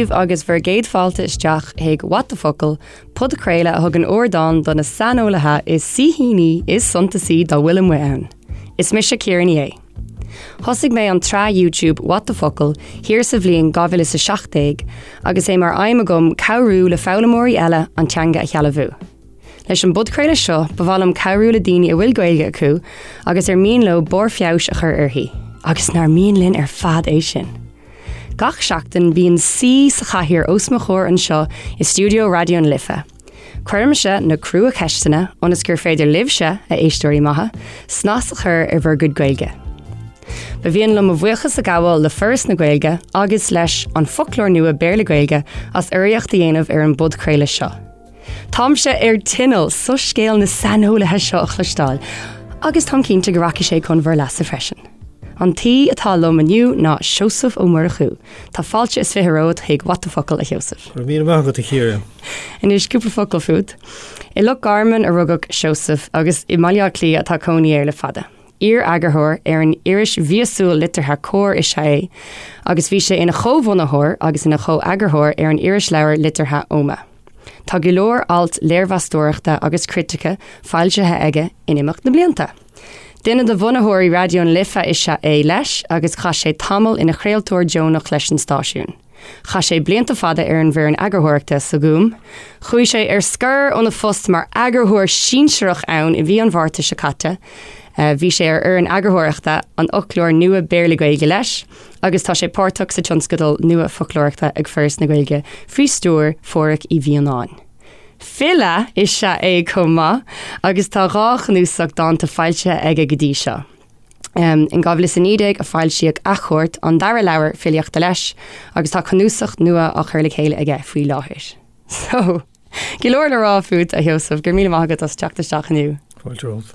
daoibh agus bhur gcéad fáilte isteach chuig What the Focal, podchraoladh a thugann ardán do na saineolaithe is saoithíní is suntasaí dá bhfuil amuigh ann. Is mise Ciara Ní É. Thosaigh mé an tsraith YouTube What the Focal thiar sa bhliain 2017 agus é mar aidhm agam cabhrú le foghlaimeoirí eile an teanga a shealbhú. Leis an bpodchraoladh seo, ba mhaith liom cabhrú le daoine a bhfuil Gaeilge acu agus ar mian leo barr feabhais a chur uirthi, agus nár mian linn ar fad é sin? Gach seachtain bíonn saoi sa chathaoir os mo chomhair anseo i stiúideo Raidió na Life. Cuirimse na crua-cheisteanna ionas gur féidir libhse, a éisteoirí maithe, snas a chur ar bhur gcuid Gaeilge. Ba mhian liom mo bhuíochas a ghabháil le Foras na Gaeilge agus leis An Foclóir Nua Béarla-Gaeilge as urraíocht a dhéanamh ar an bpodchraoladh seo. Táimse ar tinneall soiscéal na saineolaithe seo a chloisteáil agus táim cinnte go rachaidh sé chun bhur leasa freisin. An t-aoi atá liom inniu ná Seosamh Ó Murchú. Tá fáilte is 20 romhat chuig What the Focal, a Sheosaimh. Go raibh míle maith agat, a Chiara. Anois cúpla focal fút. I Loch Garman a rugadh Seosamh agus i mBaile Átha Cliath atá cónaí air le fada. Iar-eagarthóir ar an iris mhíosúil liteartha Comhar is ea é agus bhí sé ina chomhbhunaitheoir agus ina chomheagarthóir ar an irisleabhar liteartha Oghma. Tá go leor alt léirmheastóireachta agus critice foilsithe aige in imeacht na mblianta. Duine de bhunaitheoirí Raidió na Life is ea é leis agus chaith sé tamall ina chraoltóir deonach leis an stáisiún. Chaith sé blianta fada ar an bhfoireann eagarthóireachta sa Ghúm. Chuaigh sé ar scor óna phost mar eagarthóir sinsearach ann i mhí an Mhárta seo caite. Bhí sé ar fhoireann eagarthóireachta an Fhoclóir Nua Béarla-Gaeilge leis agus tá sé páirteach sa tionscadal nua foclóireachta ag Foras na Gaeilge faoi stiúir Phádhraic Uí Mhianáin. File is ea é chomh maith agus tá 2 chnuasach dánta foilsithe aige go dtí seo. In 2019 a foilsíodh Athchuairt, an dara leabhar filíochta leis, agus tá cnuasach nua á chur le chéile aige faoi láthair. So, go leor le rá fút, a Sheosaimh, go raibh míle maith agat as teacht isteach inniu. Fáilte romhat.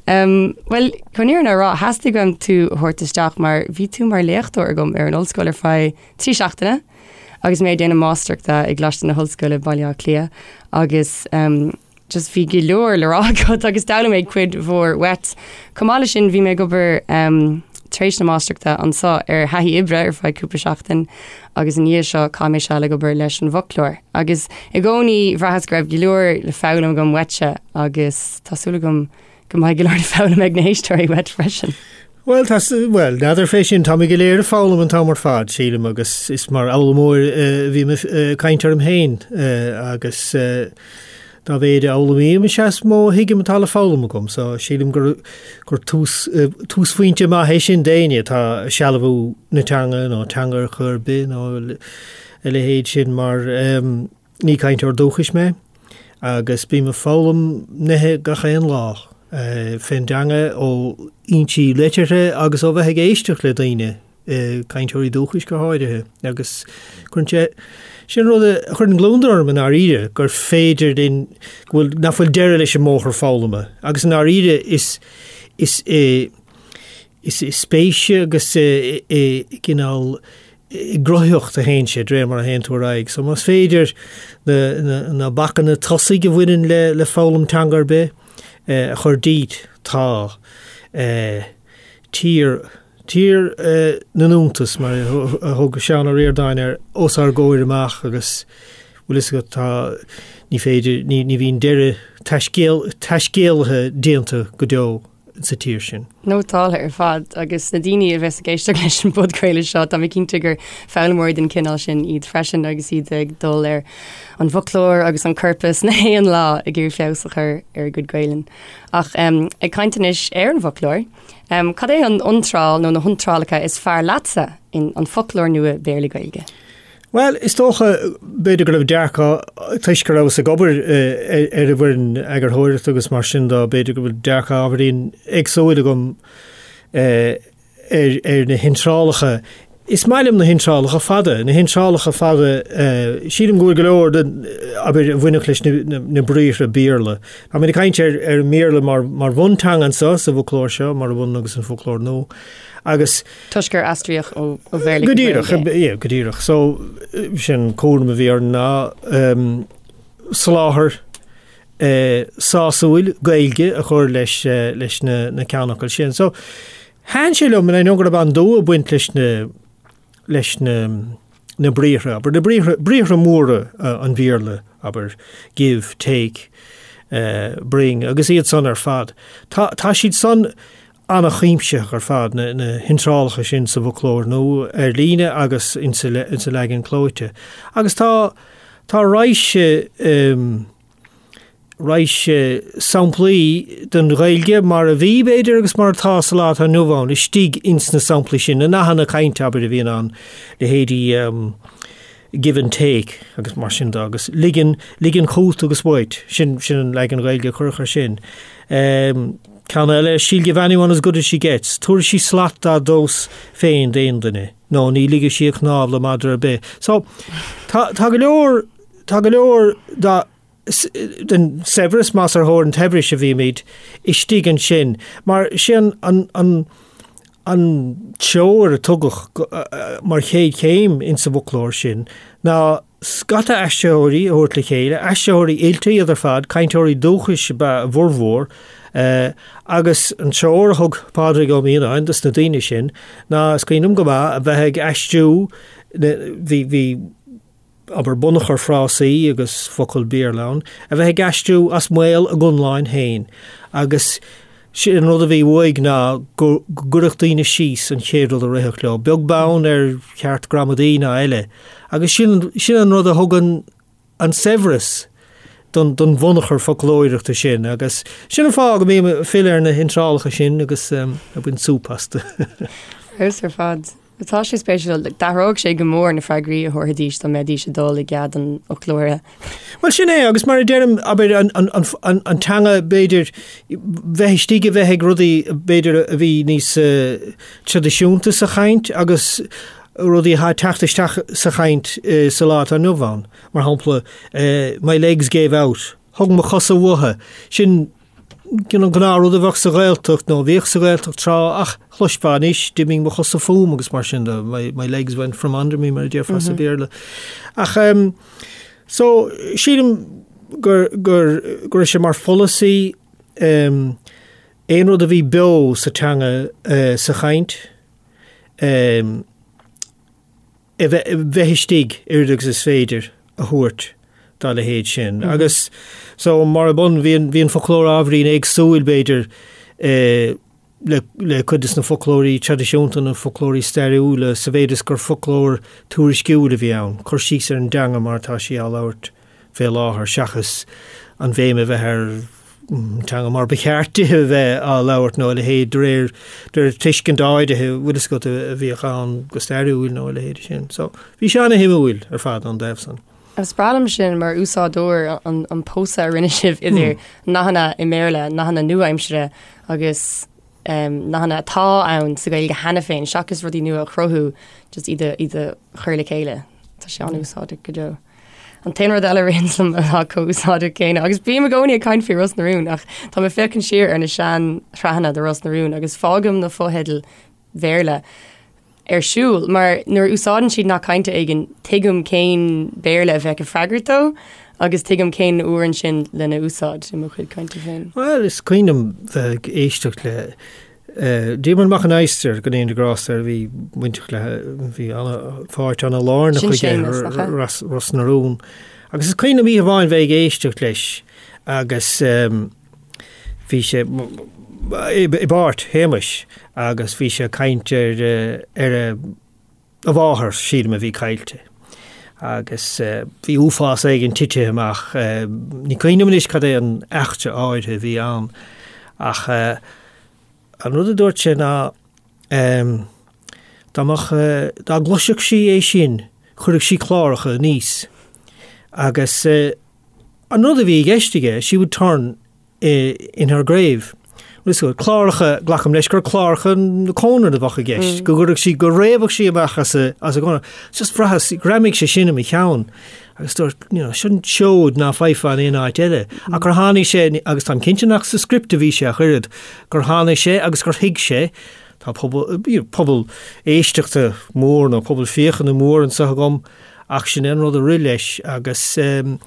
Bhuel, chun an fhírinne a rá, theastaigh uaim tú a thabhairt isteach mar bhí tú mar léachtóir agam ar an ollscoil ar feadh 3 seachtaine agus mé ag déanamh máistreachta i gColáiste na hOllscoile, Baile Átha Cliath, agus just bhí go leor le rá agat agus d'fhoghlaim mé cuid mhór uait. Chomh maith leis sin bhí mé ag obair tar éis na máistreachta anseo ar thaithí oibre ar feadh cúpla seachtain agus i ndiaidh seo chaith mé seal ag obair leis an bhfoclóir. Agus i gcónaí bhraitheas go raibh go leor le foghlaim agam uaitse agus tá súil agam go mbeidh go leor le foghlaim ag na héisteoirí uait freisin. Bhuel, tá, bhuel, n'fheadar fé sin, táimid go léir ag foghlaim an t-am ar fad, sílim, agus is mar fhoghlaimeoir a bhím ag caint orm féin agus dá mhéid a fhoghlaimím is ea is mó a thuigim atá le foghlaim agam, so sílim gur, gur tús, túsphointe maith é sin d'éinne atá ag sealbhú na teanga nó teanga ar chor ar bith nó a leithéid sin mar ní cainteoir dúchais mé agus bím ag foghlaim nithe gach aon lá fén dteanga ó fhoinsí liteartha agus ó bheith ag éisteacht le daoine, cainteoirí dúchais go háirithe, agus cuireann sé, sin rud a chuireann gliondar orm i ndáiríre, gur féidir linn, go bhfuil, nach bhfuil deireadh leis an mbóthar foghlama agus i ndáiríre is, is i, is i spéis agus i, i gcineál i gcruthaitheacht a théann sé, de réir mar a théann tú ar aghaidh. So más féidir na, na, na bacanna tosaigh a bhaineann le, le foghlaim teanga ar bith eh, a chur díot, tá eh, tír, tír eh, na n-iontas, mar a thug Seán Ó Ríordáin air, os ár gcomhair amach agus bhfuil fhios agat, tá, ní féidir, ní, ní bhíonn deireadh taiscéal, taiscéalaithe déanta go deo. sa tír sin. Nótáltha ar fad agus na daoine a bheas ag éisteacht leis an bpodchraoladh seo, tá mé cinnte gur foghlaimeoirí den chineál sin iad freisin agus iad ag dul ar an bhfoclóir agus an corpas na haon lá ag iarraidh feabhas a chur ar a gcuid Gaelainne. Ach ag caint anois ar an bhfoclóir, cad é an iontráil nó na hiontrálacha is fearr leatsa in An Foclóir Nua Béarla-Gaeilge? Bhuel, is dócha, b'fhéidir go raibh dearcadh, toisc go rabhas ag obair ar an bhfoireann eagarthóireachta agus mar sin de, b'fhéidir go bhfuil dearcadh ábhairín éagsúil agam ar ar na hiontrálacha. Is maith liom na hiontrálacha fada, na hiontrálacha fada, sílim go bhfuil go leor den, abair, a bhainfeadh leis na na briathra Béarla. Táimid ag caint ar ar an mBéarla mar mar bhunteanga anseo sa bhfoclóir seo, mar a bhaineann agus an foclóir nua. Agus. Toisc gur aistríodh ó Bhéarla go Gaeilge. Go díreach, yeah, go díreach. So, sin cúram a bhí orainn ná soláthar sásúil Gaeilge a chur leis leis na na ceannfhocail sin. So, thaitin sé liom, and I know go raibh an-dua ag baint leis na leis na. na briathra, abair, na briathra, briathra móra an Bhéarla, abair, give, take, bring, agus iad san ar fad. Tá, tá siad san an-chuimsitheach ar fad, na, na hiontrálacha sin sa bhfoclóir nua ar líne agus insa, insa leagan clóite. Agus tá, tá raidhse, raidhse samplaí den Ghaeilge mar a bhí, b'fhéidir, agus mar atá sa lá atá inniu ann, istigh ins na samplaí sin, na nathanna cainte, abair, a bhíonn ann, leithéidí give and take agus mar sin de, agus ligean, ligean chugat agus uait, sin, sin an leagan Gaeilge a cuireadh air sin. Ceann eile, she'll give anyone as good as she gets, tabharfaidh sí slat dá tomhas féin d'aon duine, nó ní ligfidh sí a cnámh le madra ar bith. So, tá, tá go leor, tá go leor dá, den saibhreas, más ar thóir an tsaibhris a bhímid, istigh ansin. Mar sin an, an, an treoir a tugadh mar chéad chéim insa bhfoclóir sin ná scata aistritheoirí a thabhairt le chéile, aistritheoirí oilte iad ar fad, cainteoirí dúchais ab ea a bhformhór, agus an treoir a thug Pádraig Ó Mianáin dos na daoine sin ná, is cuimhin liom go maith, a bheith ag aistriú, bhí, bhí, abair, bunachar frásaí agus focal Béarla ann, a bheith ag aistriú as maol a gconláin féin agus sin an rud a bhí uaidh ná go gcuirfeadh daoine síos an chéad rud a rithfeadh leo, beag beann ar cheart gramadaí ná eile. Agus sin, sin an rud a thugann an saibhreas don, don bhunachar foclóireachta sin agus sin an fáth go mbím ag filleadh ar na hiontrálacha sin agus ag baint súp astu. Fheabhas ar fad. Tá sé spéisiúil. D'athródh sé go mór na freagraí a thabharfaidís dá mbeidís ag dul i gcead an fhoclóra. Bhuel, sin é, agus mar a deirim, abair, an, an, an, an, an teanga, b'fhéidir, bheith istigh a bheith ag rudaí, b'fhéidir, a bhí níos uh, traidisiúnta sa chaint agus rudaí atá ag teacht isteach sa chaint uh, sa lá atá inniu ann. Mar shampla, uh, my legs gave out. Thug mo chosa uathu. Sin an gnáthrud a bheadh sa Ghaeltacht nó a bhíodh sa Ghaeltacht tráth ach chloisfeá anois, d'imigh mo chosa fúm agus mar sin de, my, my legs went from under me mar a déarfá sa Bhéarla. Ach um, so sílim gur, gur, go raibh sé mar pholasaí um, aon rud a bhí beo sa teanga uh, sa chaint um, a bheith istigh oiread agus is féidir a thabhairt dá leithéid sin. Agus so mar ab ionann, bhí an, bhí an foclóir ábhairín éagsúil b'fhéidir le, le cuid de na foclóirí traidisiúnta, na foclóirí stairiúla, sa mhéid is gur foclóir tuairisciúil a bhí ann, cur síos ar an dteanga mar atá sí á labhairt fé láthair seachas an bhéim a bheith ar teanga mar ba cheart di a bheith á labhairt nó a leithéid de réir de réir tuiscint áirithe bhfuil fhios agat a bhíodh ann go stairiúil nó a leithéid sin. So bhí sé ana-shuimiúil ar fad ón dtaobh san. Is breá liom sin mar úsáideoir an, an pósadh a rinne sibh idir nathanna i mBéarla, nathanna nua-aimsire agus um, nathanna atá ann sa Ghaeilge cheana féin seachas rudaí nua a chruthú just iad a, iad a chur le chéile. Tá sé an-úsáideach go deo. An t-aon rud eile a ritheann liom atá chomh úsáideach céanna, agus bím i gcónaí ag caint faoi Ros na Rún, ach tá mé ag féachaint siar ar na sean-shraitheanna de Ros na Rún agus fágaim na fotheidil Bhéarla ar siúl, mar nuair a úsáideann siad nath cainte éigin, tuigim cén Béarla a bheadh ag freagairt dó agus tuigim cén uair ansin lena úsáid i mo chuid cainte féin. Bhuel, is cuimhin liom bheith ag éisteacht le Diarmuid Mac an Adhastair, go ndéana Dia grásta air, bhí bainteach le, bhí ana-pháirt ana-lárnach Sin aige Séamus, nach ea? Ros, Ros na Rún. Agus is cuimhin liom oíche amháin bheith ag éisteacht leis agus bhí sé i bpáirt Shéamais agus bhí sé ag caint ar ar a a mháthair, sílim, a bhí caillte. Agus bhí uafás éigin titithe amach. Ní cuimhin liom anois cad é an eachtra áirithe a bhí ann, ach an rud a dúirt sé ná dá mbeadh, dá gcloisfeadh sí é sin, chuirfeadh sí cláracha aníos. Agus an rud a bhí i gceist aige, she would turn in her grave. Cláracha, glacaim leis gur cláracha na cónra a bheadh i gceist, go gcuirfeadh sí, go réabfadh sí amach as a, as a cónra. Just bhraitheas, ghreamaigh sé sin i mo cheann. Agus dúirt, you know, sin seoid ná faighfeá in aon áit eile. Ach gur tháinig sé, agus táim cinnte nach sa script a bhí sé ach oiread, gur tháinig sé agus gur thuig sé, tá pobal, you know, pobal éisteachta mór nó pobal féachana mór anseo agam, ach sin é an rud a rith leis agus um,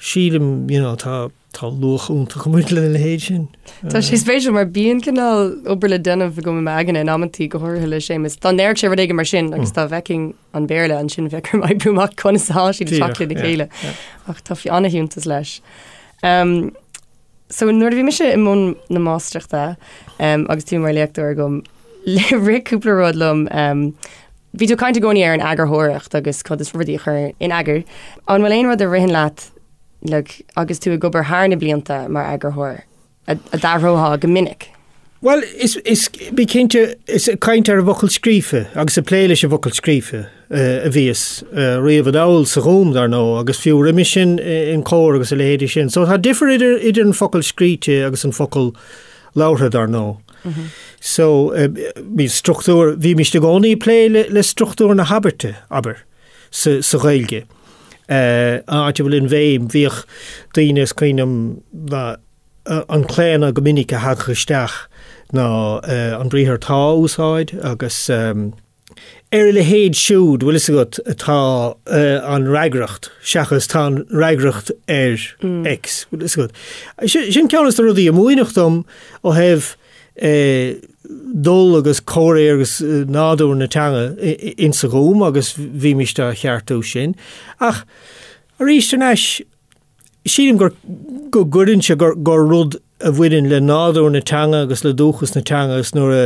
sílim, you know, tá. Tá luach iontach ag baint lena leithéid sin. Tá sé spéisiúil mar bíonn cineál obair le déanamh agam i m'aigne in amantaí go háirithe le Séamus. Dá ndéarfadh sé rud éigin mar sin agus dá bhfeicfinn an Béarla ansin bheadh orm oibriú amach conas atá siad ag teacht lena chéile. Ach tá an-fhiúntas leis. So nuair a bhí mise i mbun na máistreachta agus tú mar léachtóir agam, rith cúpla rud liom. Bhí tú ag caint i gcónaí ar an eagarthóireacht agus conas rudaí a chur in eagar. An bhfuil aon rud a ritheann leat like, agus tú ag obair thar na blianta mar eagarthóir, a d'athrófá go minic? Bhuel, is, is, bí cinnte, is ag caint ar an bhfocal scríofa agus ag plé leis an bhfocal scríofa a bhíos riamh anall sa Ghúm, dar ndóigh, agus fiú roimhe sin in Comhar agus a leithéidí sin. So tá difear idir, idir an focal scríte agus an focal labhartha, dar ndóigh. So, bhí struchtúr, bhímist i gcónaí ag plé le, le struchtúr na habairte, abair. sa Ghaeilge. An áit a bhfuil an bhéim, bhíodh daoine, is cuimhin liom, an claonadh go minic a thagadh isteach ná an briathar tá a úsáid agus ar a leithéid siúd, bhfuil fhios agat, atá an fhreagracht seachas tá an fhreagracht ar X, bhfuil fhios agat. Sin ceann de na rudaí a múineadh dom ó thaobh dul agus comhréir agus nádúr na teanga insa Ghúm agus bhímist á cheartú sin. Ach arís thar n-ais, sílim gur go gcuireann sé gur gur rud a bhaineann le nádúr na teanga agus le dúchas na teanga agus nuair a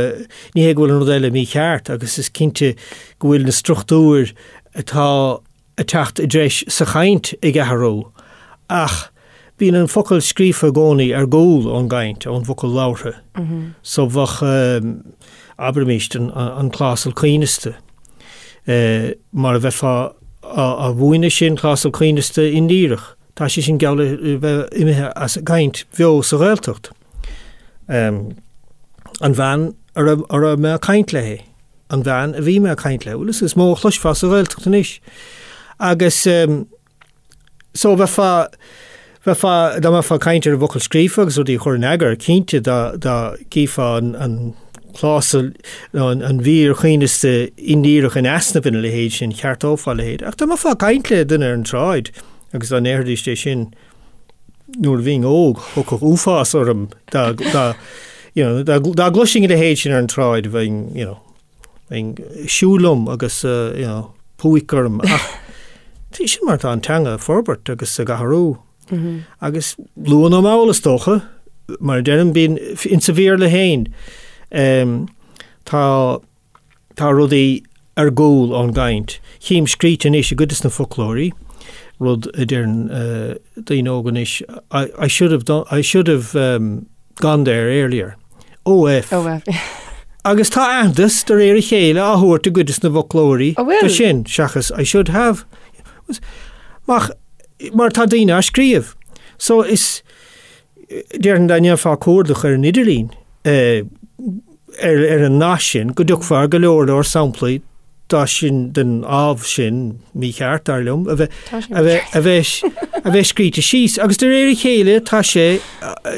ní hé go bhfuil an rud eile mícheart agus is cinnte go bhfuil na struchtúir atá ag teacht i dtreis sa chaint ag athrú, ach bíonn an focal scríofa i gcónaí ar gcúl ón gcaint, ón bhfocal labhartha. So bheadh, abraimíst, an clásal coibhneasta, mar a bheifeá á mhúineadh sin, clásal coibhneasta indíreach, tá sé sin geall le bheith imithe as an gcaint bheo sa Ghaeltacht. An bhean a raibh mé ag caint léi. an bhean a bhí mé ag caint léi, bhuel is mó a chloisfeá sa Ghaeltacht anois. Agus so bheifeá, bheifeá, dá mbeifeá ag caint ar an bhfocal scríofa agus rudaí a chur in eagar, cinnte dá, dá gcífeá an, an clásal nó an, an mhír choibhneasta indíreach in easnamh ina leithéid sin, cheartófá a leithéid. Ach dá mbeifeá ag caint le duine ar an tsráid agus dá ndéarfaidís é sin, nuair a bhínn óg, thiocfadh uafás orm dá, dá, you know, dá, dá gcloisfinn a leithéid sin ar an tsráid, bheinn, you know, bheinn ag siúl liom agus, uh, you know, púic orm. Ach sin mar tá an teanga ag forbairt agus ag athrú. Mm -hmm. Agus luath nó mall is dócha, mar a deirim bíonn insa Bhéarla féin, um, tá Tá rudaí ar gcúl ón gcaint. Chím scríte anois i gcuid de na foclóirí, rud a deireann daoine óga anois, I should have done, I should have gone there earlier. OF. OF. Agus tá aitheantas de réir a chéile á thabhairt i gcuid de na bhfoclóirí do sin, seachas I should have. Mach, mar tá daoine á scríobh. So is, Déarfainn dá ndéanfá cuardach ar an idirlíon ar an nath sin go dtiocfá ar go leor leor samplaí dá sin den ábh sin, mícheart dar liom, a bheith a bheith a bheith a bheith scríte síos agus de réir a chéile tá sé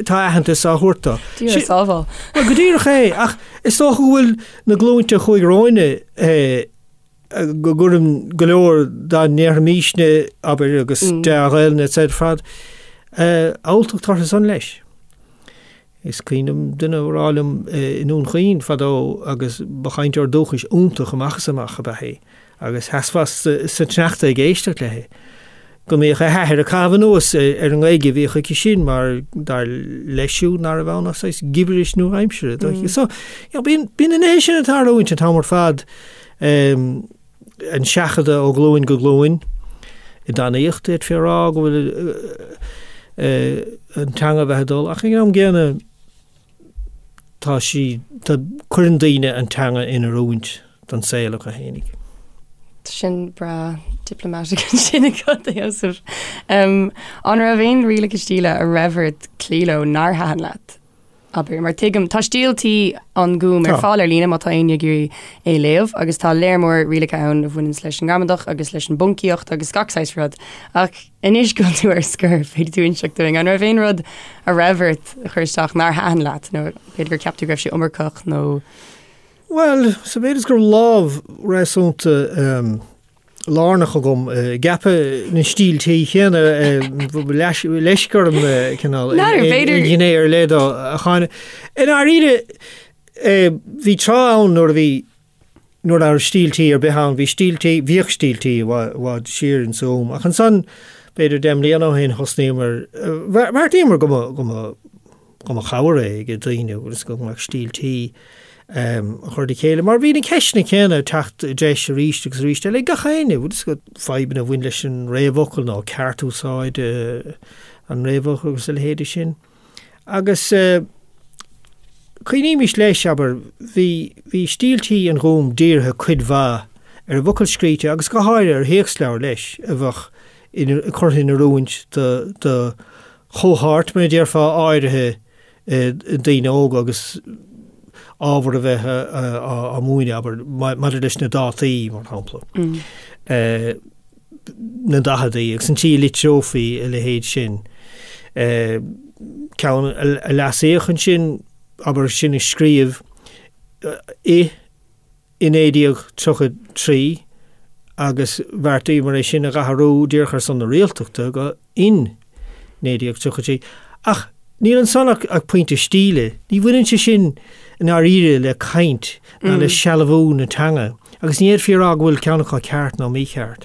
tá aitheantas á thabhairt dó. Dia ár sábháil. Bhuel go díreach é ach is dócha go bhfuil na glúinte a chuaigh romhainne go gcuireann go leor dá ndéarfaimisne, abair, agus dea-Ghaelainn etc. ar fad, alltacht orthu san leis. Is cuimhin liom duine a rá liom i nDún Chaoin fadó agus ba chainteoir dúchais iontach amach is amach ab ea é agus sheasfá sa tsneachta ag éisteacht léi, go mbíodh a hathair ag caitheamh anuas ar an nGaeilge a bhíodh aici sin mar dar leis siúd nach raibh ann ach saghas gibiris nua-aimsire. So, you know, bíonn, bíonn na nithe sin ag tarlúint an t-am ar fad, an seachadadh ó ghlúin go glúin i dtanaíocht, d'fhéadfaí a rá go bhfuil an teanga a bheith ag dul, ach ag an am gcéanna tá sí, tá, cuireann daoine an teanga in oiriúint don saol acu fhéinig. Sin breá diplomatic ansin agat, a Sheosaimh. An raibh aon rialacha stíle a raibh ort cloí leo nár thaitin leat? Abair, mar tuigim, tá Stíl Tí an Ghúim ar fáil ar líne má tá éinne ag iarraidh é a léamh agus tá léar mór rialacha ann a bhaineanns leis an ngramadach agus leis an bponcaíocht agus gach saghas rud. Ach anois go bhfuil tú ar scor, féadfaidh tú inseacht dúinn, an raibh aon rud a raibh ort a chur isteach nár thaitin leat nó b'fhéidir gur cheap tú go raibh sé iomarcach nó. Bhuel, sa mhéid is go raibh lámh réasúnta. lárnach agam i gceapadh na stíltí céanna, leisc orm cineál aon ghné ar leith dó a cháineadh. I ndáiríre, bhí tráth ann nuair a bhí, nuair nach raibh stíltí ar bith ann, bhí stíltí, bhíodh stíltí i bhfad siar in san am, ach ansan, b'fhéidir 10 mbliana ó shin, thosnaíomar, bheartaíomar go mba, go mba, go mba chabhair é ag daoine agus go mbeadh stíl tí a chur le chéile. Mar bhí na ceisteanna céanna ag teacht i dtreis arís agus arís eile ag gach éinne, bhfuil fhios agat, fadhbanna a bhain leis an réamhfhocal nó ceartúsáid an réamhfhocail agus a leithéide sin. Agus cuimhnímis leis, abair, bhí, bhí stíl tí an Ghúim dírithe cuid mhaith ar an bhfocal scríte agus go háirithe ar théacsleabhair leis a bheadh curtha in oiriúint do, do chohórt, mar a déarfá, áirithe daoine óga agus ábhar a bheith á múineadh, abair, maidir leis na dátaí, mar shampla, na daicheadaí agus an tslí a litreofaí a leithéid sin. Ceann a leasaíodh ansin, abair, sin a scríobh i i 1933 agus bheartaíomar é sin a dh'athrú díreach ar son na rialtachta go in 1933. Ach níl ansan ach pointe stíle. Ní bhaineann sé sin i ndáiríre le caint ná le sealbhú na teanga agus ní fhéadfaí a rá go bhfuil ceann acu ceart nó mícheart.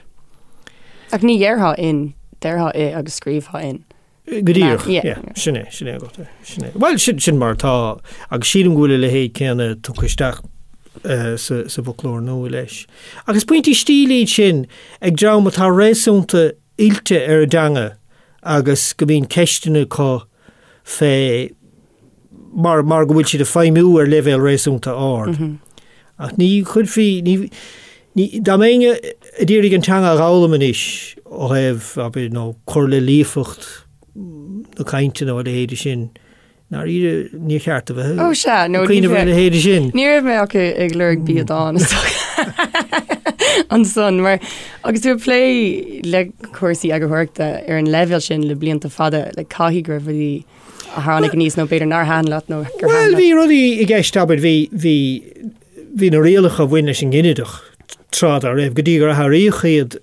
Ach ní dhéarfá in, déarfá i agus scríobhfá in. Go díreach, yeah, sin é, sin é agat é, sin é. Bhuel, sin, sin mar atá, agus sílim go bhfuil a leithéid céanna tugtha isteach sa, sa bhfoclóir nua leis. Agus pointí stíle iad sin ag dream atá réasúnta oilte ar an dteanga agus go mbíonn ceisteanna acu fé mar, mar go bhfuil siad ag feidhmiú ar leibhéal réasúnta ard. Ach ní chuirfí, ní, ní, dá mbeinn ag iarraidh an teanga a dh'fhoghlaim anois ó thaobh, abair, nó cur le líofacht na cainte nó a leithéide sin, ndáiríre, níor cheart a bheith Ó sea, nó ag cuimhneamh ar a leithéide sin. Ní raibh mé ach ag lorg biadán is dócha ansan mar agus tú ag plé le cúrsaí eagarthóireachta ar an leibhéal sin le blianta fada, like caithfidh go raibh rudaí a tháinig aníos nó b'fhéidir nár thaitin leat nó gur thaitin Bhuel, bhí rudaí i gceist, abair, bhí, bhí, bhí na rialacha a bhain leis an nginideach tráth dá raibh, go dtí gur athraíodh iad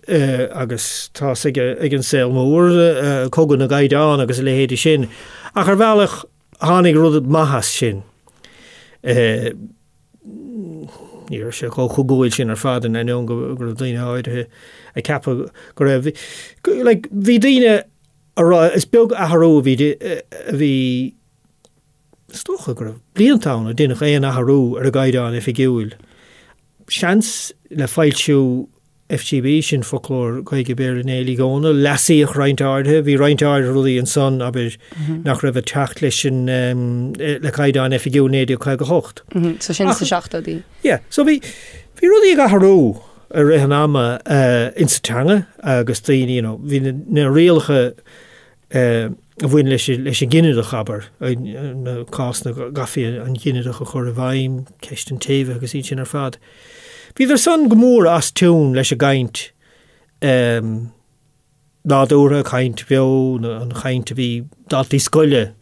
agus tá's ag, ag an saol mór, cogadh na gcaighdeán agus a leithéide sin. Ach ar bhealach tháinig rud maith as sin. Ní raibh sé chomh cogúil sin ar fad in ainneoin go raibh daoine áirithe ag ceapadh go raibh. Like, bhí daoine a rá, is beag athrú a bhí, a bhí, is dócha go raibh blianta ann a deineadh aon athrú ar an gCaighdeán Oifigiúil. Seans le foilsiú FGB, sin Foclóir Gaeilge Béarla Néill Uí Dhónaill, leasaíodh roinnt áirithe, bhí roinnt áirithe rudaí ansan, abair, nach raibh ag teacht leis an, le Caighdeán Oifigiúil 1958. So sin sna seachtóidí. Yeah, so bhí, bhí rudaí ag athrú. i rith an ama insa teanga agus daoine, you know, bhí na rialacha a bhain leis leis an ginideach, abair, na cásanna go gcaithfí an ginideach a chur i bhfeidhm, ceist an tséimhithe agus iad sin ar fad. Bhíodar san go mór as tiún leis an gcaint nádúrtha, caint bheo, an chaint a bhí daltaí scoile,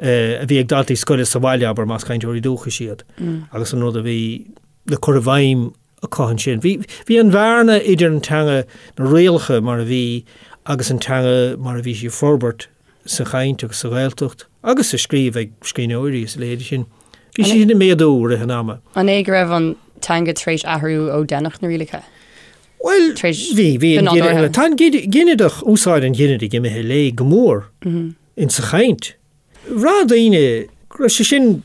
a bhí ag daltaí scoile sa bhaile, abair, más cainteoirí dúchais iad, agus an rud a bhí le cur i bhfeidhm acu ansin. Bhí, bhí an bhearna idir an teanga, na rialacha mar a bhí agus an teanga mar a bhí sí ag forbairt sa chaint agus sa Ghaeltacht agus sa scríobh ag scríbhneoirí is a leithéide sin. Bhí sí sin ag méadú i rith an ama. An é go raibh an teanga tar éis athrú ó deineadh na rialacha? Bhuel, bhí, bhí an ginideach, tá an ginideach, úsáid an ghinidigh imithe i léig go mór in sa chaint. Bhraith daoine go raibh sé sin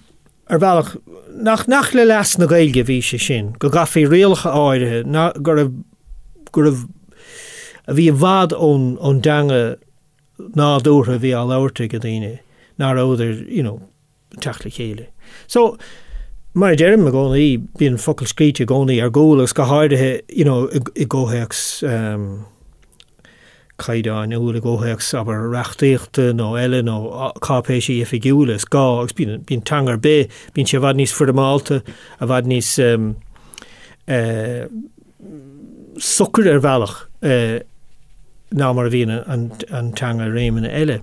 ar bhealach nach, nach le leas na Gaeilge a bhí sé sin, go gcaithfí rialacha áirithe, ná, go raibh, go raibh, a bhí i bhfad ón, ón dteanga nádúrtha a bhí á labhairt ag daoine, ná rabhadar, you know, ag teacht le chéile. So, mar a deirim i gcónaí, bíonn focal scríte i gcónaí ar gcúl agus go háirithe, you know, i gcomhthéacs um, caighdeáin úr, i gcomhthéacs, abair, reachtaíochta nó eile nó cáipéisí oifigiúla, is gá agus bíonn, bíonn teanga ar bith, bíonn sé i bhfad níos foirmeálta, i bhfad níos um, uh, socair ar bhealach uh, ná mar a bhíonn an, an teanga i réimeanna eile.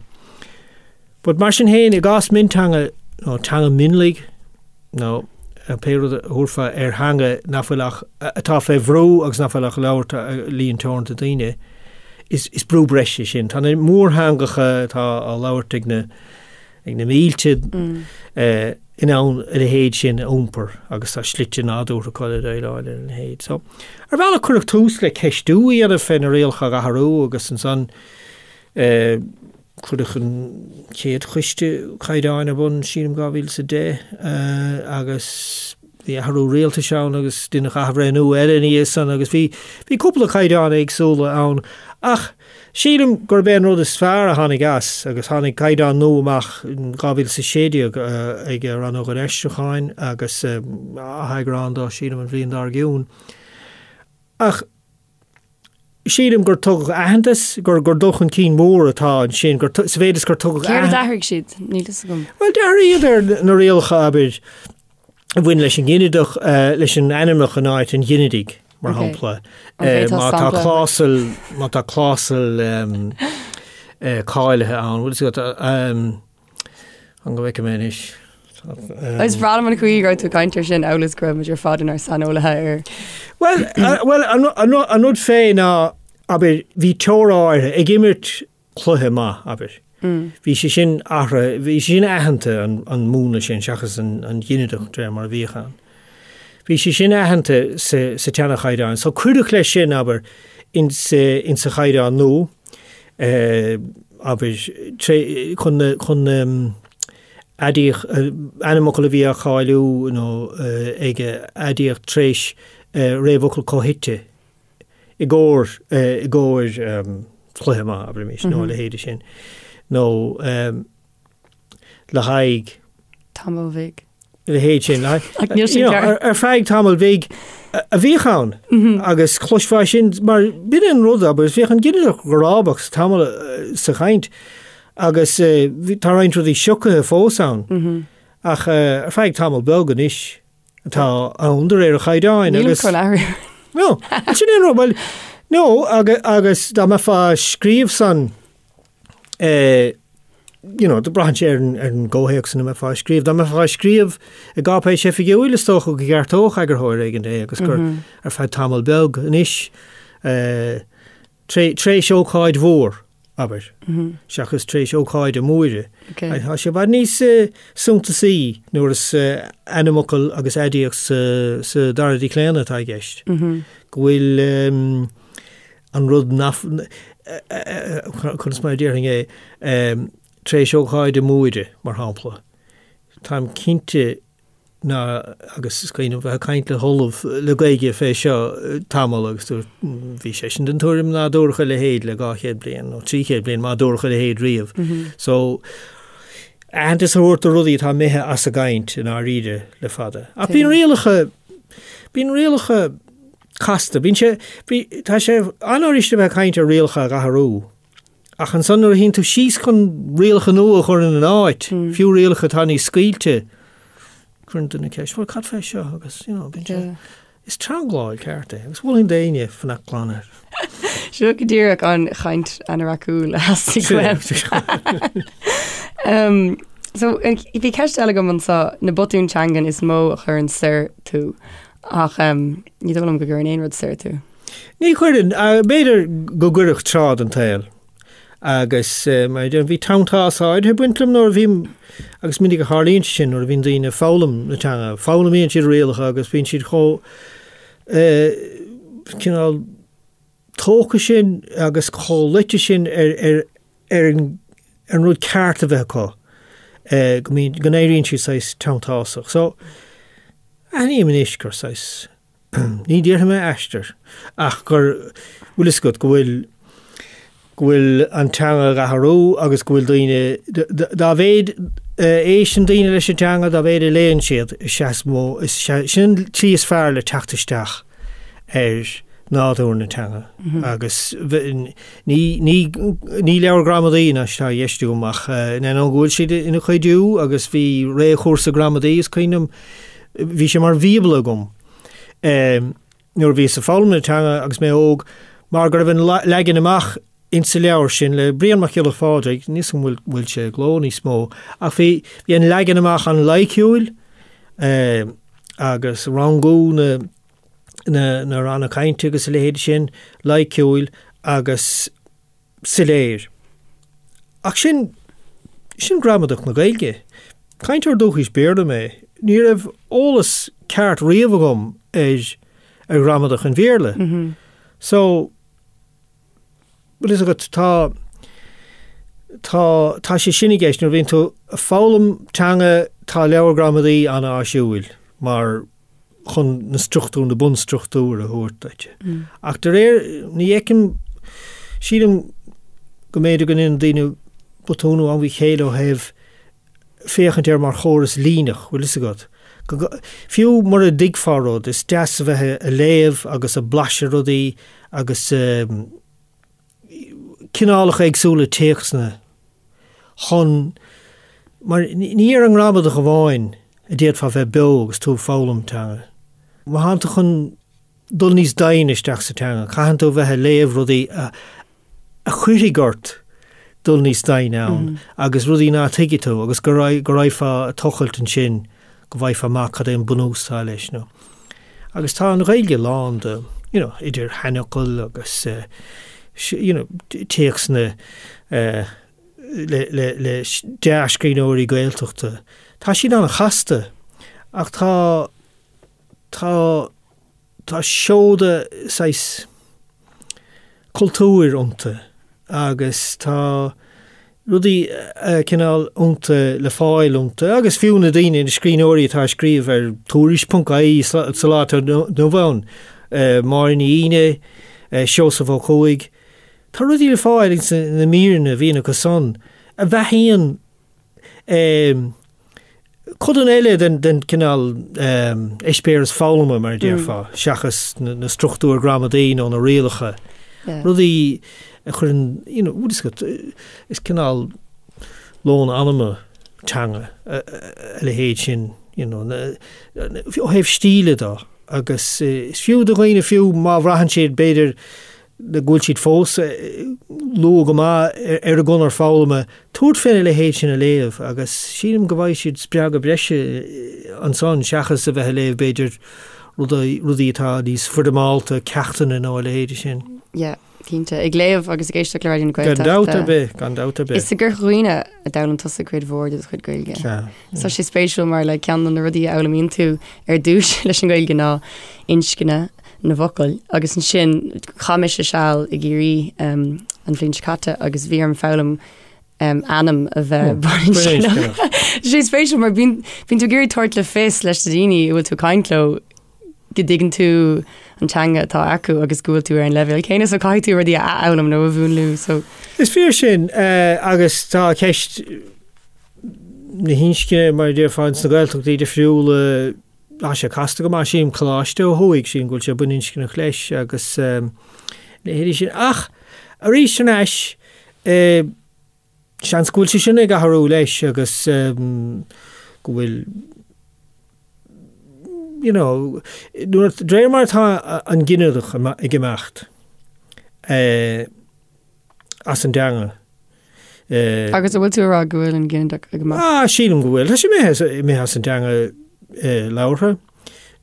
But mar sin féin, i gcás mionteanga nó teanga mionlaigh nó. pé rud a thabharfá ar theanga nach bhfuil ach, atá fé bhrú agus nach bhfuil ach á labhairt ag líon teoranta daoine, is, is brú breise sin. Tá na mórtheangacha atá á labhairt ag na, ag na mílte in ann a leithéid sin a iompar agus tá slite nádúrtha acu le déileáil lena leithéid. So, ar bhealach cuireadh tús le ceistiú a dhéanamh fé na rialacha a dh'athrú agus ansan cuireadh an chéad choiste caighdeáin ar bun, sílim, 2010 agus bhí athrú rialtais ann agus deineadh athbhreithniú eile ina dhiaidh san agus bhí, bhí cúpla caighdeán éagsúla ann ach sílim gurb é an rud is fearr a tháinig as agus tháinig caighdeán nua amach in 2016 ag Rannóg an Aistriúcháin agus atheagrán dó sílim an bhliain dár gcionn ach sílim gur tugadh aitheantas, gur gur dul chun cinn mór atá ansin, gur sa mhéid is gur tugadh Céard a d'athraigh siad? Níl fhios agam. Bhuel, d'athraíodar na rialacha, abair, a bhain leis an nginideach, leis an ainmneach in áit an ghinidigh, mar shampla. Má tá clásal, má tá clásal cáilithe ann, bhfuil fhios agat, an go bhfeicfidh mé anois. Is breá liom an chaoi go raibh tú ag caint air sin amhail is go raibh muid ar fad inár saineolaithe air. Bhuel, bhuel, an rud fé ná, abair, bhí teora áirithe ag imirt cluiche maith, abair. Bhí sé sin athraithe, bhí sé sin aitheanta, an múnla sin, seachas an ginideach de réir mar a bhíodh ann. Bhí sé sin aitheanta sa tseana-chaighdeán. So cuireadh leis sin, abair, insa chaighdeán nua, abair, chun na, chun na aidiacht, ainmfhocal a bhí á cháiliú nó ag aidiacht tar éis réamhfhocal comhshuite i gcomhair, i gcomhair cluiche maith, abraimis, nó a leithéide sin, nó le haghaidh. Tamall bhig. A leithéid sin. Ach níl sin ceart. Ar feadh tamaill bhig a bhíodh ann agus chloisfeá sin mar b'in an rud agus bhíodh an ginideach grábach sa tamall sa chaint agus tá roinnt rudaí siocaithe fós ann ach ar feadh tamall beag anois atá ann de réir an chaighdeáin agus. Nílim chun athrú. No, sin é an rud, bhuel, no agus dá mbeifeá ag scríobh san you know, braitheann sé ar an, ar an gcomhthéacs ina mbeifeá ag scríobh. Dá mbeifeá ag scríobh i gcáipéis oifigiúil, is dócha go gceartódh eagarthóir éigin é agus gur mm -hmm. ar feadh tamall beag anois eh, tar éis ócáid mhór, abair, mm -hmm. seachas tar éis ócáide móire. Okay. Tá sé i bhfad níos eh, suntasaí nuair is eh, ainmfhocal agus aidiacht sa, sa dara díochlaonadh atá i gceist. Mm -hmm. Go bhfuil um, an rud nach, conas mar a déarfainn é, tar éis ócáide móire, mar shampla. Táim cinnte ná, agus is cuimhin liom bheith ag caint le hOllamh le Gaeilge fé seo tamall agus dúirt, bhí seisean den tuairim ná dúradh a leithéid le 200 bliain nó 300 bliain má dúradh a leithéid riamh. So, aitheantas a thabhairt do rudaí atá imithe as an gcaint i ndáiríre le fada. Ach bíonn rialacha, bíonn rialacha, casta. Bíonn sé, bí, tá sé an-fhuirist a bheith ag caint ar rialacha a dh'athrú, ach ansan nuair a shuíonn tú síos chun rialacha nua a chur ina n-áit, fiú rialacha atá níos scaoilte, cuireann duine ceist, bhuel, cad fé seo? Agus, you know, bíonn sé, Yeah. is teangláil ceart é, agus mholfainn d'éinne fanacht glan air. Seo go díreach an chaint anoraiciúil a theastaigh uaim. Um, so, bhí ceist eile agam anseo, na botúin teangan is mó a chuireann soir tú. Ach ní dóigh liom go gcuireann aon rud soir tú. Ní chuireann. B'fhéidir go gcuirfeadh tráth den tsaol. Agus mar a deirim, bhí teanntás áirithe ag baint liom nuair a bhí, agus minic a tharlaíonn sé sin nuair a bhíonn daoine ag foghlaim na teanga, foghlaimíonn siad rialacha agus bíonn siad chomh cineál tógtha sin agus chomh luite sin ar ar ar an ar an rud ceart a bheith acu go mbíonn, go n-éiríonn siad saghas teanntásach. So, aithním anois gur saghas, ní déarfaidh mé aistear, ach gur, bhfuil fhios agat, go bhfuil, go bhfuil an teanga ag athrú agus go bhfuil daoine, dá mhéid a éisteann daoine leis an teanga, dá mhéid a léann siad, is ea is mó, is ea, sin an tslí is fearr le teacht isteach ar nádúr na teanga agus ní, ní, ní leabhar gramadaí anois atá i gceist agam ach in ainneoin go bhfuil siad ina chuidiú agus bhí réchúrsa gramadaí is cuimhin liom, bhí sé mar bhíobla agam nuair a bhíos ag foghlaim na teanga agus mé óg mar go raibh an leagan amach insa leabhar sin le Brian Mac Giolla Phádraig, níl 'fhios agam an bhfuil sé i gcló níos mó, ach bhí, bhí an leagan amach an-loighciúil. agus rangú na na na ranna cainte agus a leithéid sin, loighciúil agus soiléir. Ach sin, sin gramadach na Gaeilge. Cainteoir dúchais Béarla mé. Ní raibh eolas ceart riamh agam ar ar ghramadach an Bhéarla. So, bhfuil fhios agat, tá, tá, tá sé sin i gceist. Nuair a bhíonn tú ag foghlaim teanga, tá leabhar gramadaí an-áisiúil mar chun na struchtúir, na bunstruchtúir a thabhairt duit. Ach de réir, ní fheicim, sílim go mb'fhéidir go ndéanann daoine botún ó am go chéile ó thaobh féachaint air mar chóras líneach, bhfuil fhios agat. Fiú mura dtuigfeá rud, is deas a bheith ag léamh agus ag blaiseadh rudaí agus cineálacha éagsúla téacsanna chun, mar ní ar an ngramadach amháin a d'fhéadfá bheith beo agus tú ag foghlaim teanga. Má thánn tú chun dul níos doimhne isteach sa teanga, caitheann tú a bheith ag léamh rudaí a a chuirfidh ort dul níos doimhne ann agus rudaí ná tuigfidh tú agus go raghfá ag tochailt ansin go bhfaighfeá amach cad é an bunús atá leis nó. Agus tá an Ghaeilge lán de, you know, idir sheanfhocail agus you know, téacsanna le, le, le dea-scríbhneoirí Gaeltachta. Tá siad an-chasta ach tá, tá, tá seoda saghas cultúir iontu agus tá rudaí cineál iontu le fáil iontu agus fiú na daoine, na scríbhneoirí atá ag scríobh ar Tuairisc ponc ie sa lá atá inniu ann, Máire Ní Fhínne, Seosamh Ó Cuaig, tá rudaí le fáil ins na míreanna a bhíonn acu san a bheathaíonn Codanna eile den cineál eispéireas foghlama, mar a déarfá, seachas na struchtúir gramadaí nó na rialacha, rudaí a chuireann, you know, is cineál lón anama teanga a leithéid sin, you know, ó thaobh stíle de agus is fiú do dhaoine, fiú má bhraitheann siad, b'fhéidir, go bhfuil siad fós luath go maith ar a gconair foghlama, tabhairt féna leithéid sin a léamh agus sílim go bhfaighidh siad spreagadh breise ansan seachas a bheith ag léamh b'fhéidir rudaí, rudaí atá níos foirmeálta, ceachtanna nó a leithéid sin. Yeah, cinnte. Ag léamh agus ag éisteacht le Raidió na Gaeltachta. Gan dabht ar bith, gan dabht ar bith. Is i gCorca Dhuibhne a d'fhoghlaim tusa cuid mhór de do chuid Gaeilge. Sea. Tá sé spéisiúil mar like ceann de na rudaí a fhoghlaimíonn tú ar dtús leis an Ghaeilge ná inscne na bhfocal agus ansin chaith mise seal i gCiarraí um, an bhliain seo caite agus bhí orm foghlaim um, ainm a bheith baininscneach. Tá sé spéisiúil mar bíonn bíonn tú ag iarraidh tabhairt le fios leis na daoine a bhfuil tú ag caint leo go dtuigeann tú an teanga atá acu agus go bhfuil tú ar an leibhéal céanna so caithfidh tú rudaí a athfhoghlaim nó a mhúnlú so. Is fíor sin agus tá ceist na hinscne mar a déarfá ins na Gaeltachtaí difriúla tá sé casta go maith sílim coláiste ó thuaidh sílim go bhfuil sé baininscneach leis agus leithéidí sin ach arís thar n-ais Seans go bhfuil sé sin ag athrú leis agus go bhfuil you know, nuair, de réir mar atá an ginideach ag imeacht as an dteanga. Agus an bhfuil tú ag rá go bhfuil an ginideach ag imeacht? Ah, sílim go bhfuil. Tá sé imithe as an dteanga labhartha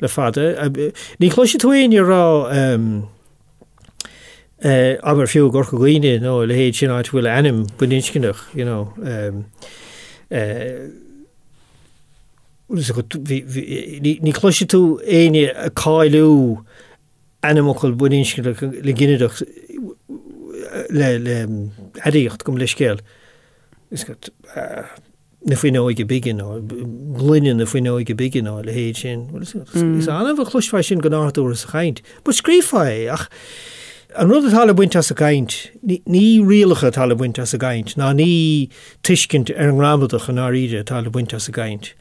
le fada. Ní chloisfidh tú éinne ag rá Abair fiú i gCorca Dhuibhne nó a leithéid sin áit a bhfuil ainm baininscneach, you know. Ní chloisfidh tú éinne ag cáiliú ainmfhocal baininscneach le ginideach le aidiacht gabh mo leithscéal. na fuinneoige bige nó gloine na fuinneoige bige nó a leithéid sin. Is annamh a chloisfeá sin go nádúrtha sa chaint. But scríofá é ach an rud atá le baint as an gcaint, ní rialacha atá le baint as an gcaint ná ní tuiscint ar an ngramadach i ndáiríre atá le baint as an gcaint.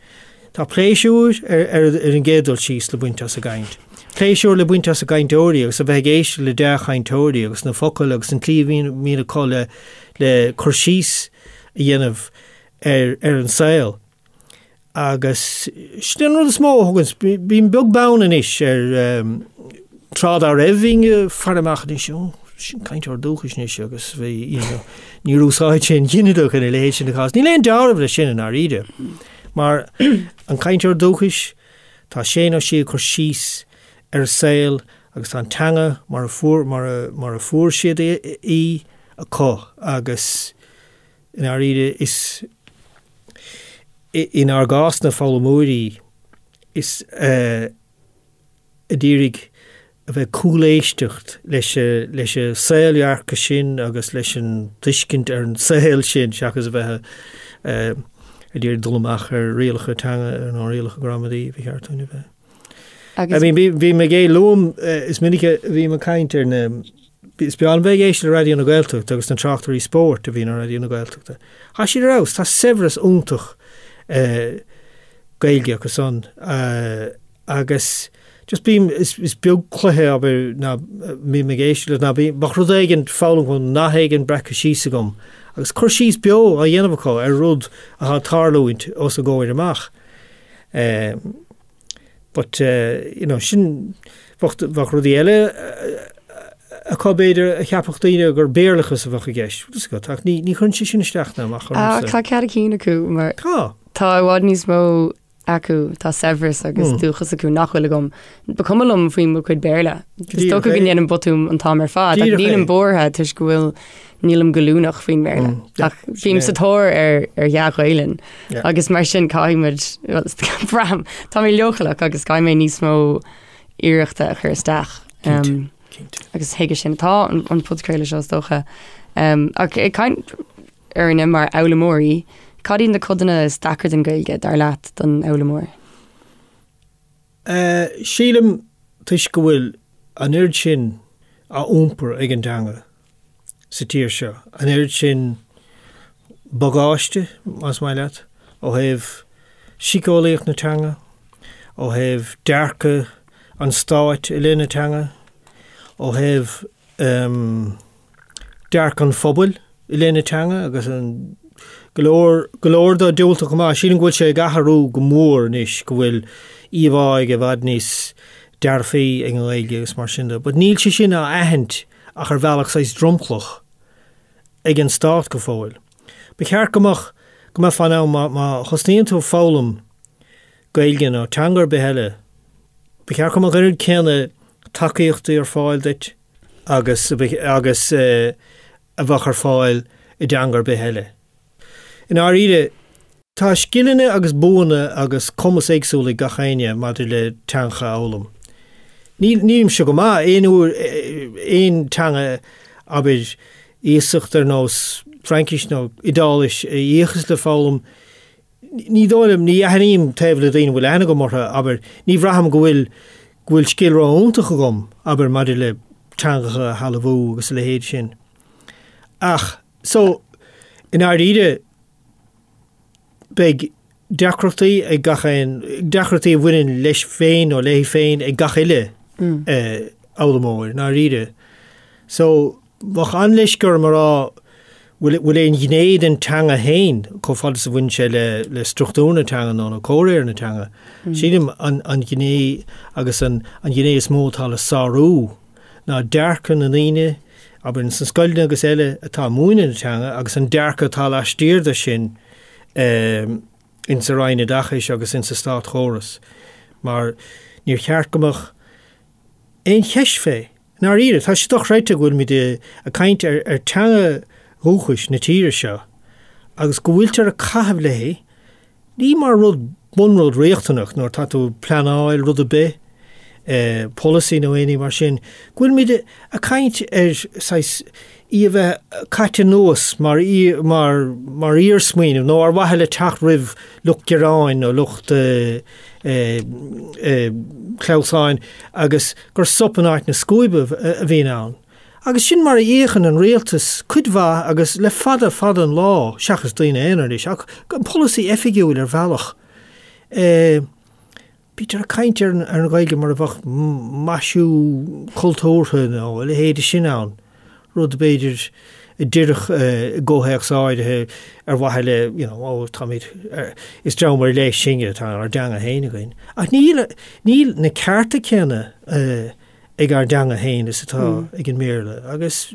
Tá pléisiúr ar an gcéad dul síos le baint as an gcaint. Pléisiúr le baint as na cainteoirí agus a bheith ag éisteacht le dea-chainteoirí agus na focail agus an tslí a mbíonn acu le le cur síos a dhéanamh ar ar an saol. Agus sin an rud is mó a thugann, bím beag beann anois ar tráth dá raibh bhínn ag faire amach anois, ó, sin cainteoir dúchais anois agus bhí, you know, níor úsáid sé an ginideach ina leithéid sin de chás. Níl aon dealramh leis sin i ndáiríre, mar an cainteoir dúchais. Tá sé nó sí ag cur síos ar a saol agus tá an teanga mar a fuair, mar a, mar a fuair siad í acu agus i ndáiríre is inár gcás na foghlaimeoirí is a d'iarraidh a bheith ag cúléisteacht leis leis an saoldhearcadh sin agus leis an tuiscint ar an saol sin seachas a bheith ag iarraidh dul amach ar rialacha teanga nó rialacha gramadaí ba cheart dúinn a bheith. I mean bím ag é luaim is minic a bhím ag caint ar na is breá liom bheith ag éisteacht le Raidió na Gaeltachta agus na tráchtairí spóirt a bhíonn ar Raidió na Gaeltachta. Tá siad ar fheabhas, tá saibhreas iontach Gaeilge acu san agus just bím, is is beag cluiche abair ná mbím ag éisteacht leis ná bím, bheadh rud éigin foghlamtha agam, nath éigin breactha síos agam agus cur síos beo á dhéanamh acu ar rud atá ag tarlúint os a gcomhair amach. But you know sin, bheadh bheadh rudaí eile acu b'fhéidir a cheapfadh daoine gur Béarlachas a bheadh i gceist. Bhfuil a fhios agat, ach ní ní chuireann sé sin isteach ná amach ormsa. Tá cead a cinn acu mar Tá. Tá i bhfad níos mó acu, tá saibhreas agus dúchas acu nach bhfuil agam. Ba cuma liom faoi mo chuid Béarla. Is dócha go ndéanaim botún an t-am ar fad, ach nílim buartha toisc go bhfuil nílim goilliúnach faoin mBéarla. Ach bím sa tóir ar ar dhea-Ghaelainn agus mar sin caithfidh muid braithim tá mé leochaileach agus caithfidh mé níos mó iarrachta a chur isteach. Agus chuige sin atá an podchraoladh seo is dócha. Ach ag caint orainne mar fhoghlaimeoirí, cad iad na codanna is deacra den Ghaeilge, dar leat, don fhoghlaimeoir? Sílim, toisc go bhfuil an oiread sin á iompar ag an dteanga sa tír seo, an oiread sin bagáiste, más maith leat, ó thaobh síceolaíocht na teanga, ó thaobh dearcadh an stáit i leith na teanga, ó thaobh dearcadh an phobail i leith na teanga agus an go leor, go leor de diúltach chomh maith. Sílim go bhfuil sé ag athrú go mór anois, go bhfuil íomhá i bhfad níos dearfaí ag an nGaeilge agus mar sin de. But níl sé sin á aithint ach ar bhealach saghas dromchlach ag an stát go fóill. Ba cheart go mbeadh, go mbeifeá in ann má, má thosnaíonn tú ag foghlaim Gaeilge nó teanga ar bith eile, ba cheart go mbeadh an oiread céanna tacaíochtaí ar fáil duit, agus agus a bheadh ar fáil i dteanga ar bith eile. I ndáiríre, tá scileanna agus buanna agus cumas éagsúil ag gach éinne maidir le teangacha a fhoghlaim. Níl, nílimse go maith aon uair aon teanga, abair, iasacht ar nós Fraincis nó Iodáilis a fhiachas le foghlaim, Ní dóigh liom, ní aithním taobh le daoine a bhfuil aithne agam orthu, abair, ní bhraithim go bhfuil, go bhfuil scil ró-iontach agam, abair, maidir le teangacha a shealbhú agus a leithéid sin. Ach, so, i ndáiríre, beidh deacrachtaí ag gach aon, deacrachtaí a bhaineann leis féin nó léi féin ag gach uile fhoghlaimeoir, i ndáiríre. So, Bheadh an-leisce orm a rá bhfuil bhfuil aon ghné den teanga féin, chomh fada is a bhaineann sé le le struchtúr na teanga nó nó comhréir na teanga. Sílim an an ghné agus an an ghné is mó atá le sárú ná dearcadh na ndaoine, abair ins na scoileanna agus eile, atá ag múineadh na teanga agus an dearcadh atá laistiar de sin insa Roinn Oideachais agus insa státchóras. Mar níor cheart go mbeadh aon cheist fé. I ndáiríre, tá sé dochreidte go bhfuilimid ag caint ar teanga dhúchais na tíre seo agus go bhfuiltear ag caitheamh léi, ní mar rud, bunrud riachtanach nuair atá tú ag pleanáil rud ar bith, polasaí nó aon ní mar sin, go bhfuilimid ag caint ar saghas í a bheith caite anuas mar mar mar iarsmaoineamh nó ar mhaithe le teacht roimh lucht gearáin nó lucht clamhsáin agus gur sop in áit na scuaibe a bhíonn ann. Agus sin mar a fhéachann an rialtas cuid mhaith agus le fada fada an lá, seachas daoine aonair anois, ach an polasaí oifigiúil ar bhealach. Bítear ag caint ar an Ghaeilge mar a bheadh maisiú cultúrtha nó a leithéid sin ann, rud b'fhéidir a d'oirfeadh i gcomhthéacs áirithe ar mhaithe le, you know, ó táimid, is dream ar leith sinne, tá ár dteanga féin againn. Ach níl, níl na cearta céanna ag ár dteanga féin is atá ag an mBéarla. Agus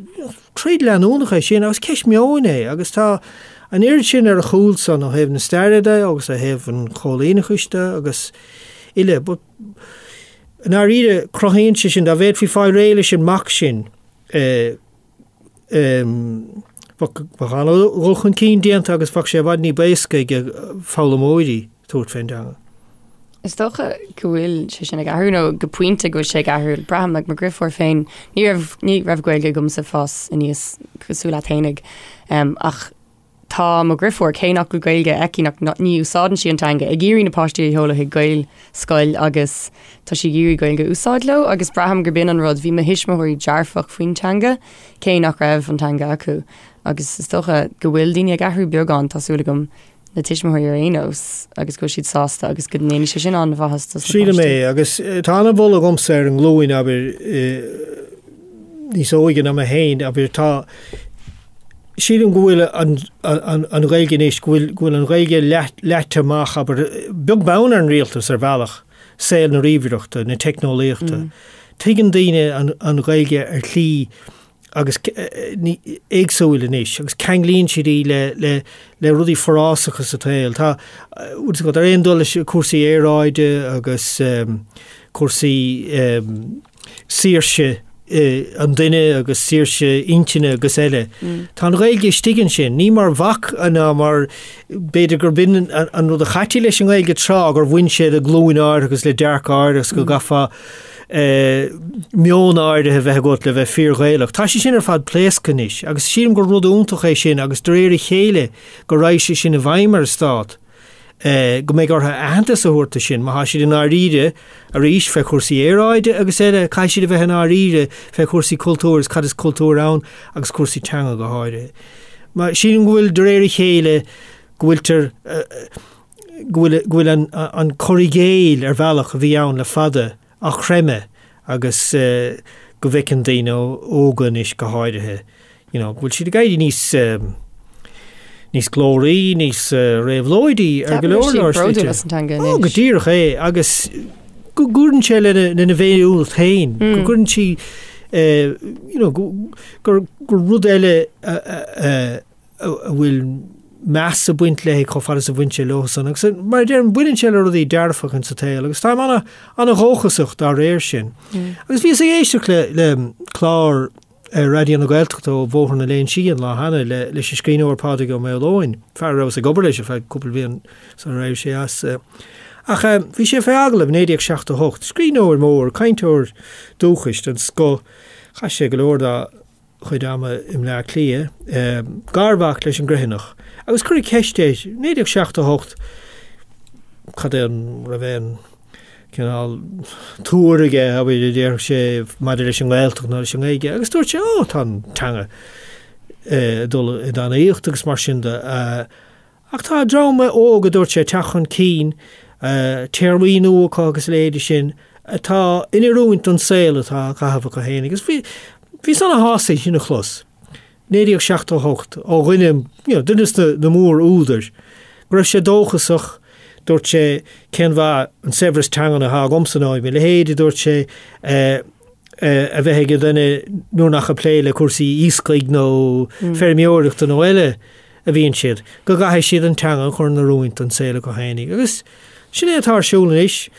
troid leanúnach é sin agus ceist meoin é agus tá an oiread sin ar a chúl san ó thaobh na staire de agus ó thaobh an choilíneachais de agus. uile. But i ndáiríre, cruthaíonn sé sin, dá bhféadfaí fáil réidh leis an mbac sin, bheadh an-dhul chun cinn déanta agus bheadh sé i bhfad ní b'éasca ag foghlaimeoirí tabhairt fén dteanga. Is dócha go bhfuil sé sin ag athrú nó go pointe go bhfuil sé ag athrú. Braithim like mo dheirfiúr féin, ní raibh ní raibh Gaeilge agamsa ag fás aníos cosúil leat fhéinig ach Tá mo dheirfiúr, cé nach bhfuil Gaeilge aici, nach, ní úsáideann sí an teanga, ag iarraidh na páistí a sheoladh chuig Gaelscoil agus tá sí ag iarraidh Gaeilge a úsáid leo agus braithim gurb in an rud, bhí mo thuismitheoirí dearfach faoin teanga, cé nach raibh an teanga acu agus is dócha go bhfuil daoine ag athrú beagán, tá súil agam, na tuismitheoirí ar aon nós agus go bhfuil siad sásta agus go ndéanfaidh sé sin an-mhaitheas dos na páistí. Sílim é agus tá an-mholadh agamsa ar an nglúin, abair, níos óige ná mé féin, abair, tá, Sílim go bhfuil an Ghaeilge anois, go bhfuil, go bhfuil an Ghaeilge leaite amach, abair, beag beann ar an rialtas ar bhealach, saol na ríomhaireachta, na teicneolaíochta. Tuigeann daoine an Ghaeilge ar shlí agus éagsúil anois agus ceanglaíonn siad í le, le, le rudaí forásacha sa tsaol. Tá, bhfuil a fhios agat, ar aon dul leis cúrsaí aeráide agus cúrsaí, saoirse an duine agus saoirse intinne agus eile. Tá an Ghaeilge istigh ansin, ní mar bhac ná mar, b'fhéidir gurb in an rud a chaití leis an nGaeilge tráth, gur bhain sé le glúin áirithe agus le dearcadh áirithe agus go gcaithfeá meon áirithe a bheith agat le bheith fíor-Ghaelach. Tá sé sin ar fad pléasctha anois agus sílim gur rud iontach é sin agus de réir a chéile go raghaidh sé sin i bhfeidhm ar an stát. go mbeidh orthu aitheantas a thabhairt do sin, má tá siad i ndáiríre, arís, fé chúrsaí aeráide agus eile, caithfidh siad a bheith i ndáiríre fé chúrsaí cultúir agus cad is cultúr ann agus cúrsaí teanga go háirithe. Mar sílim go bhfuil, de réir a chéile, go bhfuiltear, go bhfuil, go bhfuil an, an cur i gcéill ar bhealach a bhí ann le fada á chreimeadh agus go bhfeiceann daoine óga anois go háirithe, you know, go bhfuil siad ag éirí níos níos glóraí, níos réabhlóidí ar go leor leor slite. As an teanga anois. Ó, go díreach é agus go gcuireann sé lena lena bhféiniúlacht féin, go gcuireann sí you know, gur gur rud eile a bhfuil meas ag baint léi chomh fada is a bhain sé leo san. Agus mar a deirim, baineann sé le rudaí dearfacha sa tsaol agus táim ana, ana-dhóchasach dá réir sin. Agus bhíos ag éisteacht le, le clár ar Raidió na Gaeltachta ó Bhóthar na Léinsí an lá cheana le, leis an scríbhneoir Pádraig Ó Maoileoin, fear a rabhas ag obair leis ar feadh cúpla bliain sular éirigh sé as. Ach bhí sé fé agallamh i 1978, scríbhneoir mór, cainteoir dúchais den scoth, chaith sé go leor dá chuid ama i mBleá Cliath, garmhac leis an gCroithinneach, agus cuireadh ceist air, 1978, cad é an raibh aon cineál tuar aige, abair, a déarfadh sé, maidir leis an nGaeltacht nó leis an nGaeilge, agus dúirt sé, ó, tá an teanga ag dul i dtanaíocht agus mar sin de. Ach tá dream óg, a dúirt sé, ag teacht chun cinn, téarmaí nua acu agus a leithéidí sin, atá in oiriúint don saol atá á chaitheamh acu féin. Agus bhí, bhíos ana-shásta é sin a chlos, 1978, ó dhuine, you know, duine de na mór-údair, go raibh sé dóchasach, dúirt sé, cén mhaith an saibhreas teangan atá agamsa nó mo leithéid, a dúirt sé, a bheith ag duine nuair nach ag plé le cúrsaí iascaigh nó feirmeoireachta nó eile. a bhíonn siad, go gcaithfidh siad an teanga a chur in oiriúint don saol acu fhéinig. Agus sin é atá ar siúl anois. I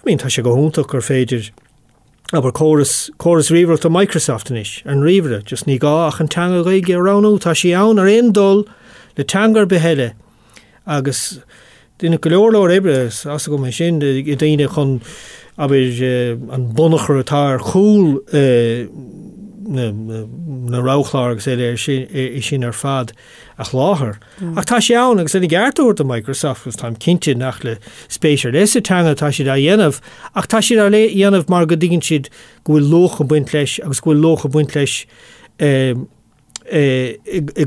mean, tá sé go hiontach gur féidir, abair, córas, córas ríomhaireachta Microsoft anois, ar an ríomhaire, just ní gá ach an teanga Ghaeilge a roghnú, tá sí ann ar aon dul le teanga ar bith eile. Agus deineadh go leor leor oibre, tá a fhios agam é sin, ag daoine chun, abair, an bunachar atá ar chúl na roghchlár agus eile é sin ar fad a sholáthar. Ach tá sé ann agus lena gceart a thabhairt do Microsoft agus táim cinnte nach le spéis ar leith sa teanga atá siad á dhéanamh ach tá siad á dhéanamh mar go dtuigeann siad go bhfuil luach ag baint leis agus go bhfuil luach ag baint leis i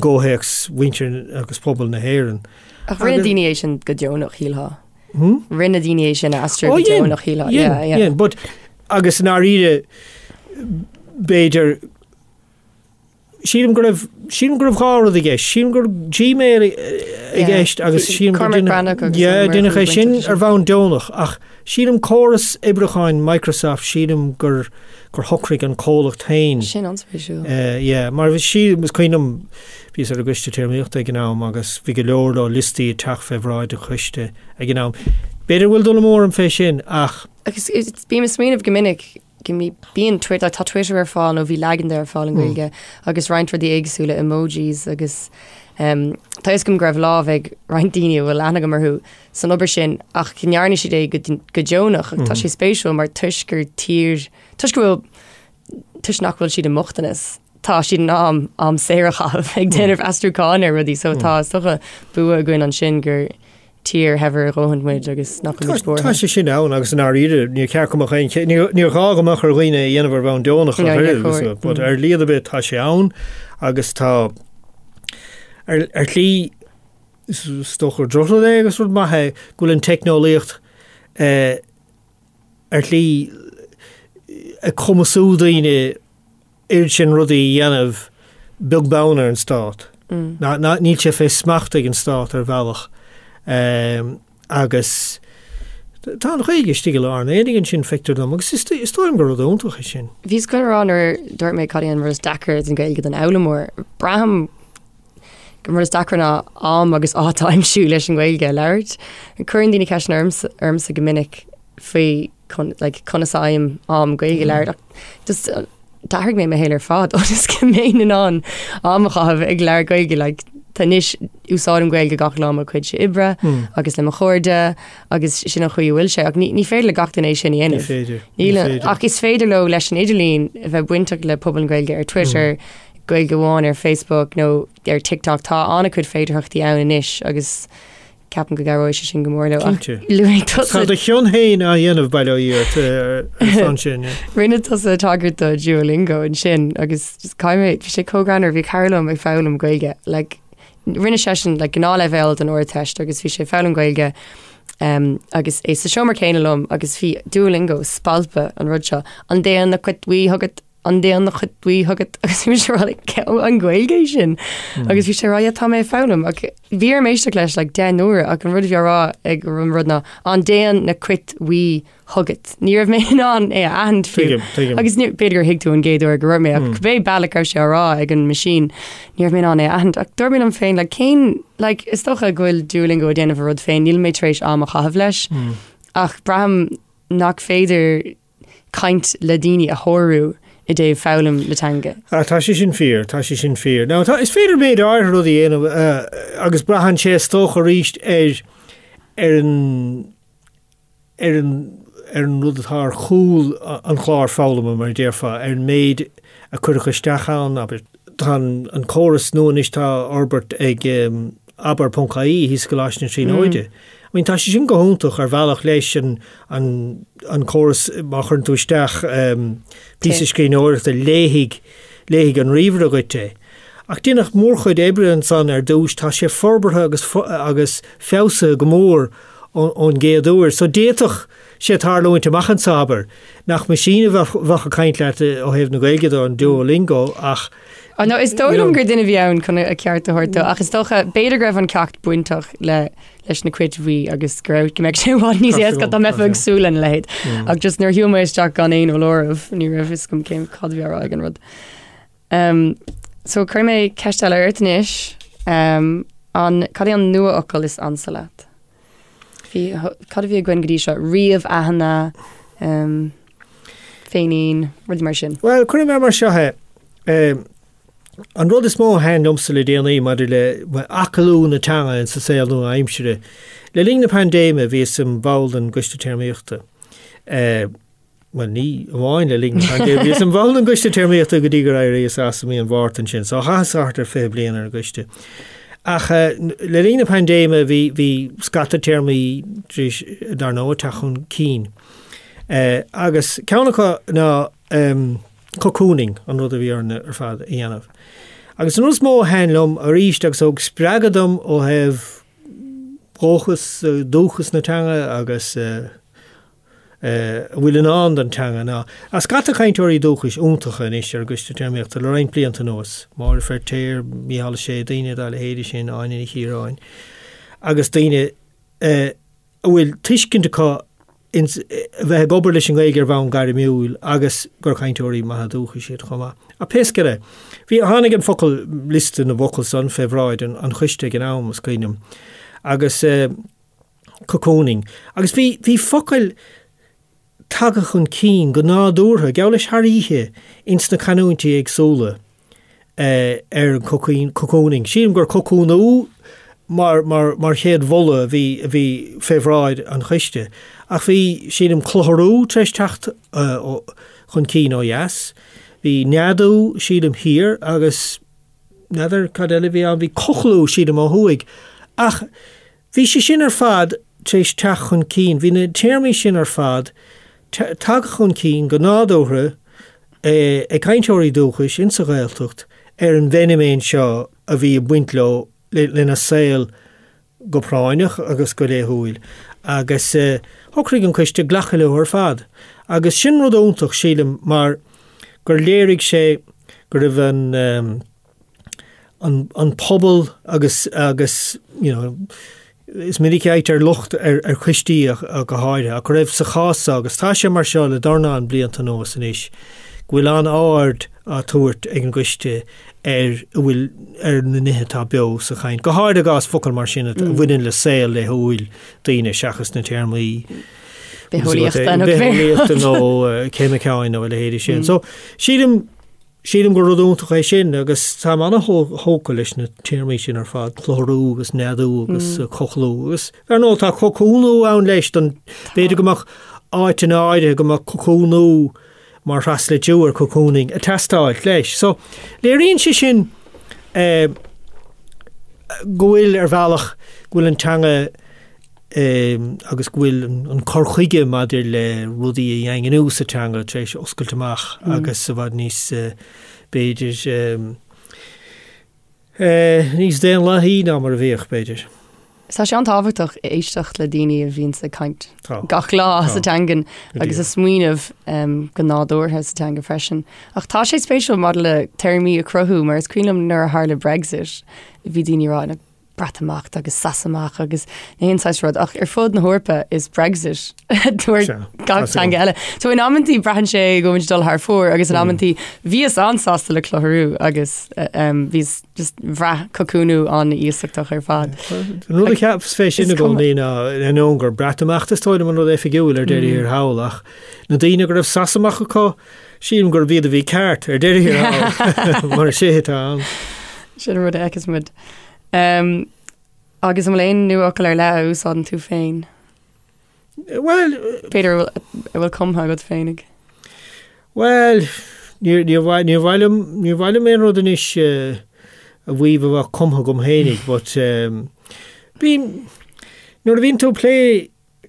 gcomhthéacs mhuintir agus pobal na hÉireann. Ach rinne daoine é sin go deonach, shílfeá. Rinne daoine é sin a aistriú go deonach, shílfeá. Dhein, dhein, but agus i ndáiríre b'fhéidir sílim go raibh sílim go raibh dhá rud i gceist. Sílim go raibh Gmail i gceist agus sílim gur deineadh é sin ar bhonn deonach ach sílim córas oibriúcháin Microsoft sílim gur gur shocraigh an comhlacht féin. Sin an-spéisiúil. Yeah, mar bhí sí, is cuimhin liom, bhíos ar an gcoiste téarmaíochta ag an am agus bhí go leor leor liostaí ag teacht fé bhráid an choiste ag an am. B'fhéidir go bhfuil dul amú orm fé sin ach. Agus bím ag smaoineamh go minic go mbíonn Twitter, tá Twitter ar fáil nó bhí leagan de ar fáil i nGaeilge agus roinnt rudaí éagsúla, emojis agus tá a fhios agam go raibh lámh ag roinnt daoine a bhfuil aithne agam orthu san obair sin ach go ndearna siad é go deonach ach tá sé spéisiúil mar toisc gur tír, toisc go bhfuil, toisc nach bhfuil siad i mbochtanas, tá siad in ann am saor a chaitheamh ag déanamh aistriúcháin ar rudaí so tá is dócha bua againn ansin gur tír shaibhir a dhóthain muid agus nach bhfuil muid buartha. Tá sé sin ann agus i ndáiríre níor cheart go mbeadh aon, níor ghá go mbeadh ar dhaoine é a dhéanamh ar bhonn deonach ach oiread, but ar shlí ar bith tá sé ann agus tá ar ar shlí is dócha gur drochrud é agus rud maith é go bhfuil an teicneolaíocht ar shlí ag cumasú daoine oiread sin rudaí a dhéanamh beag beann ar an stát. Ná, ná, níl sé fé smacht ag an stát ar bhealach. Agus tá an Ghaeilge istigh i lár an aonaigh ansin, feictear dom, agus is, is dóigh liom gur rud iontach é sin. Bhíos chun a rá nuair a dúirt mé cad é an rud is deacra den Ghaeilge don fhoghlaimeoir, braithim gur an rud is deacra ná am agus áit a aimsiú leis an nGaeilge a labhairt. Cuireann daoine ceisteanna ormsa, ormsa go minic faoi like, conas a fhaighim am Gaeilge a labhairt ach just d'athraigh mé mo shaol ar fad ionas go mbeinn in ann am a chaitheamh ag labhairt Gaeilge like, tá anois úsáidim Gaeilge gach lá mo chuid oibre mm. agus le mo chairde agus sin an chaoi a bhfuil sé ach ní, ní féidir le gach duine é sin a dhéanamh. Ní féidir. Ach is féidir leo leis an idirlíon a bheith bainteach le pobal na Gaeilge ar Twitter, mm. Gaeilge amháin ar Facebook nó ar TikTok tá an-chuid féidearthachtaí ann anois agus Ceapaim go gcabhróidh sé sin go mór leo. Cinnte. Luaigh tusa. Tá do chion féin á dhéanamh, bail ó Dhia ort, ar son sin. Rinne tusa tagairt do Duolingo ansin agus caithfidh mé, bhí sé chomh greannmhar, bhí cara liom ag foghlaim Gaeilge, like, rinne seisean like, gnáthleibhéal don Ardteist agus bhí sé ag foghlaim Gaeilge um, agus é sa seomra céanna liom agus bhí Duolingo spalpadh an rud seo, an dtéann na cait bhuí chugat An dtéann na cait bhuí chugat agus bhí mise ag rá like, an Ghaeilge é sin agus bhí sé ag rá yeah, tá mé ag foghlaim ach bhí orm éisteacht leis like, 10 n-uaire ach an rud a bhí á rá ag an rud ná an dtéann na cait bhuí chugat. Ní raibh mé in ann é a aithint fiú. Tuigim, tuigim. Agus ní- b'fhéidir gur thuig tú an gcéad uair go raibh mé ach cibé bealach a raibh sé á rá ag an machine ní raibh mé in ann é a aithint ach dúirt mé liom féin like, cén like, is dócha go bhfuil Duolingo ag déanamh a rud féin níl mé tar éis am a chaitheamh leis ach braithim nach féidir caint le daoine a shárú i dtaobh foghlaim na teanga. Ah, tá sé sin fíor, tá sé sin fíor. Now, tá, is féidir méid áirithe rudaí a dhéanamh agus braitheann sé is dócha arís ar, ar an, ar an, ar an rud atá ar chúl an chláir foghlama, mar a déarfá, ar an méid a cuireadh isteach ann, abair. Tá an, an córas nua anois atá á fhorbairt ag abair.ie thíos i gColáiste na Tríonóide. I mean, tá sé sin go hiontach ar bhealach leis an, an, an córas má chuireann tú isteach píosa scríbhneoireachta léifidh, léifidh an ríomhaire dhuit é. Ach déanadh mórchuid oibre ansan ar dtús, tá sé forbartha agus, agus feabhsaithe go mór ón, ón gcéad uair. So d'fhéadfadh sé tarlúint amach anso, abair, nach meaisín a bheadh, bheadh ag caint leat ó thaobh na Gaeilge de, an Duolingo, ach Oh no, is dóigh liom gur duine a bhí ann chun a ceart a thabhairt dó, ach is dócha, b'fhéidir go raibh an ceacht bainteach le leis na cait bhuí agus go raibh go mbeadh sé i bhfad níos éasca dá mbeifeá ag súil lena leithéid. Ach just nuair a shiúil mé isteach gan aon fholáireamh, ní raibh fhios agam cén cad a bhí á rá ag an rud. Um, so cuirfidh mé ceist eile ort anois. Um, an, cad é an nuafhocal is ansa leat? Bhí, cad a bhí againn go dtí seo? Ríomh-aithinne, um, féinín, rudaí mar sin. Bhuel, cuirfidh mé mar seo é. An rud is mó a thaitin liomsa le déanaí maidir le aclú na teanga sa saol nua-aimsire, le linn na paindéime bhíos im bhall den gCoiste Téarmaíochta. Bhuel, ní amháin le linn na paindéime, bhíos im bhall den gCoiste Téarmaíochta go dtí gur éiríos as i mí an Mhárta ansin, so chaitheas thart ar 20 bliain ar an gcoiste. Ach le linn na paindéime bhí bhí scata téarmaí tar éis, dar ndóigh, teacht chun cinn. Agus ceann acu ná cocooning, an rud a bhí orainn ar fad a dhéanamh. Agus an rud is mó a thaitin liom arís agus a thug spreagadh dom ó thaobh dhóchas, dúchas na teanga agus a bhfuil i ndán don teanga ná tá scata cainteoirí dúchais iontacha anois ar an gCoiste Téarmaíochta le roinnt blianta anuas, Máire Feirtéar, Mícheál Ó Sé, daoine dá leithéide sin, Áine Ní Chiaráin, agus daoine a a bhfuil tuiscint acu ins a bheith ag obair leis an nGaeilge ar bhonn gairmiúil agus gur cainteoirí maithe dúchais iad chomh maith. Ach pé scéal é, bhí, tháinig an focal, liosta na bhfocal san fé bhráid an, an choiste ag an am, is cuimhin liom. Agus eh, Cocooning. Agus bhí, bhí focail tagtha chun cinn go nádúrtha, geall leis thar oíche, ins na canúintí éagsúla ar an cocooning. Sílim gur cocúnú mar, mar, mar chéad mholadh a bhí, a bhí fé bhráid an choiste. Ach bhí, sílim, clutharú tar éis teacht chun cinn ó dheas. Bhí neadú, sílim, thiar agus n'fheadar cad eile a bhí ann, bhí cochlú, sílim, ó thuaidh. Ach bhí sé sin ar fad tar éis teacht chun cinn, bhí na téarmaí sin ar fad tagtha chun cinn go nádúrtha ag cainteoirí dúchais insa Ghaeltacht ar an bhfeiniméan seo a bhí ag baint leo, lena saol go práinneach agus go laethúil agus shocraigh an coiste glacadh leo ar fad. Agus sin rud iontach, sílim, mar gur léirigh sé go raibh an an an pobal agus agus you know is minic a fhaightear locht ar ar choistí go háirithe ach go raibh sa chás seo agus tá sé mar seo le dornán blianta anuas anois go bhfuil an-aird á tabhairt ag an gcoiste ar a bhfuil ar na nithe atá beo sa chaint, go háirithe i gcás focal mar sin a bhaineann le saol laethúil daoine seachas na téarmaí bitheolaíochta nó bitheolaíochta nó ceimiceáin nó a leithéidí sin. So sílim sílim gur rud iontach é sin agus táim an-thógtha leis na téarmaí sin ar fad, clutharú agus neadú agus cochlú agus ar ndóigh tá cocúnú ann leis don b'fhéidir go mbeadh áiteanna áirithe go mbeadh cocúnú mar thraslitriú ar cocooning ag teastáil leis. So, léiríonn sé sin eh, go bhfuil ar bhealach go bhfuil an teanga eh, agus go bhfuil an cur chuige maidir le rudaí a dhaingniú sa teanga tar éis oscailt amach mm. agus i bhfad níos eh, b'fhéidir eh, Níos daonlathaí ná mar a bhíodh, b'fhéidir. Tá sé an-tábhachtach éisteacht le daoine a bhíonns ag caint gach lá sa teangain agus ag smaoineamh go nádúrtha sa teanga freisin. Ach tá sé spéisiúil maidir le téarmaí a chruthú mar is cuimhin liom nuair a tharla Brexit bhí daoine ag rá Breatimeacht agus Sasaimeacht agus na haon saghas rud ach ar fud na hEorpa is Brexit dúirt gach teanga eile. So in amantaí braitheann sé go bhfuil dul thar fóir agus in amantaí bhíos an-sásta le clutharú agus bhíos just bhraith cocúnú an-iasachtach ar fad. An rud a cheapas fé sin i gcónaí ná ainneoin gur Breatimeacht is dóigh liom an rud oifigiúil ar deireadh thiar thall ach na daoine go raibh Sasaimeacht acu sílim gurb iad a bhí ceart ar deireadh thiar thall mar is é atá ann. Sin an rud a fheiceas muid. Um, agus an bhfuil aon nuafhocal ar leith a úsáideann tú féin? Bhuel... B'fhéidir a bhfuil cumtha agat féinig. Bhuel, níor mhaith liom, níor mhaith liom aon rud anois a mhaíomh a bheadh cumtha agam féinig, but bím, nuair a bhíonn tú ag plé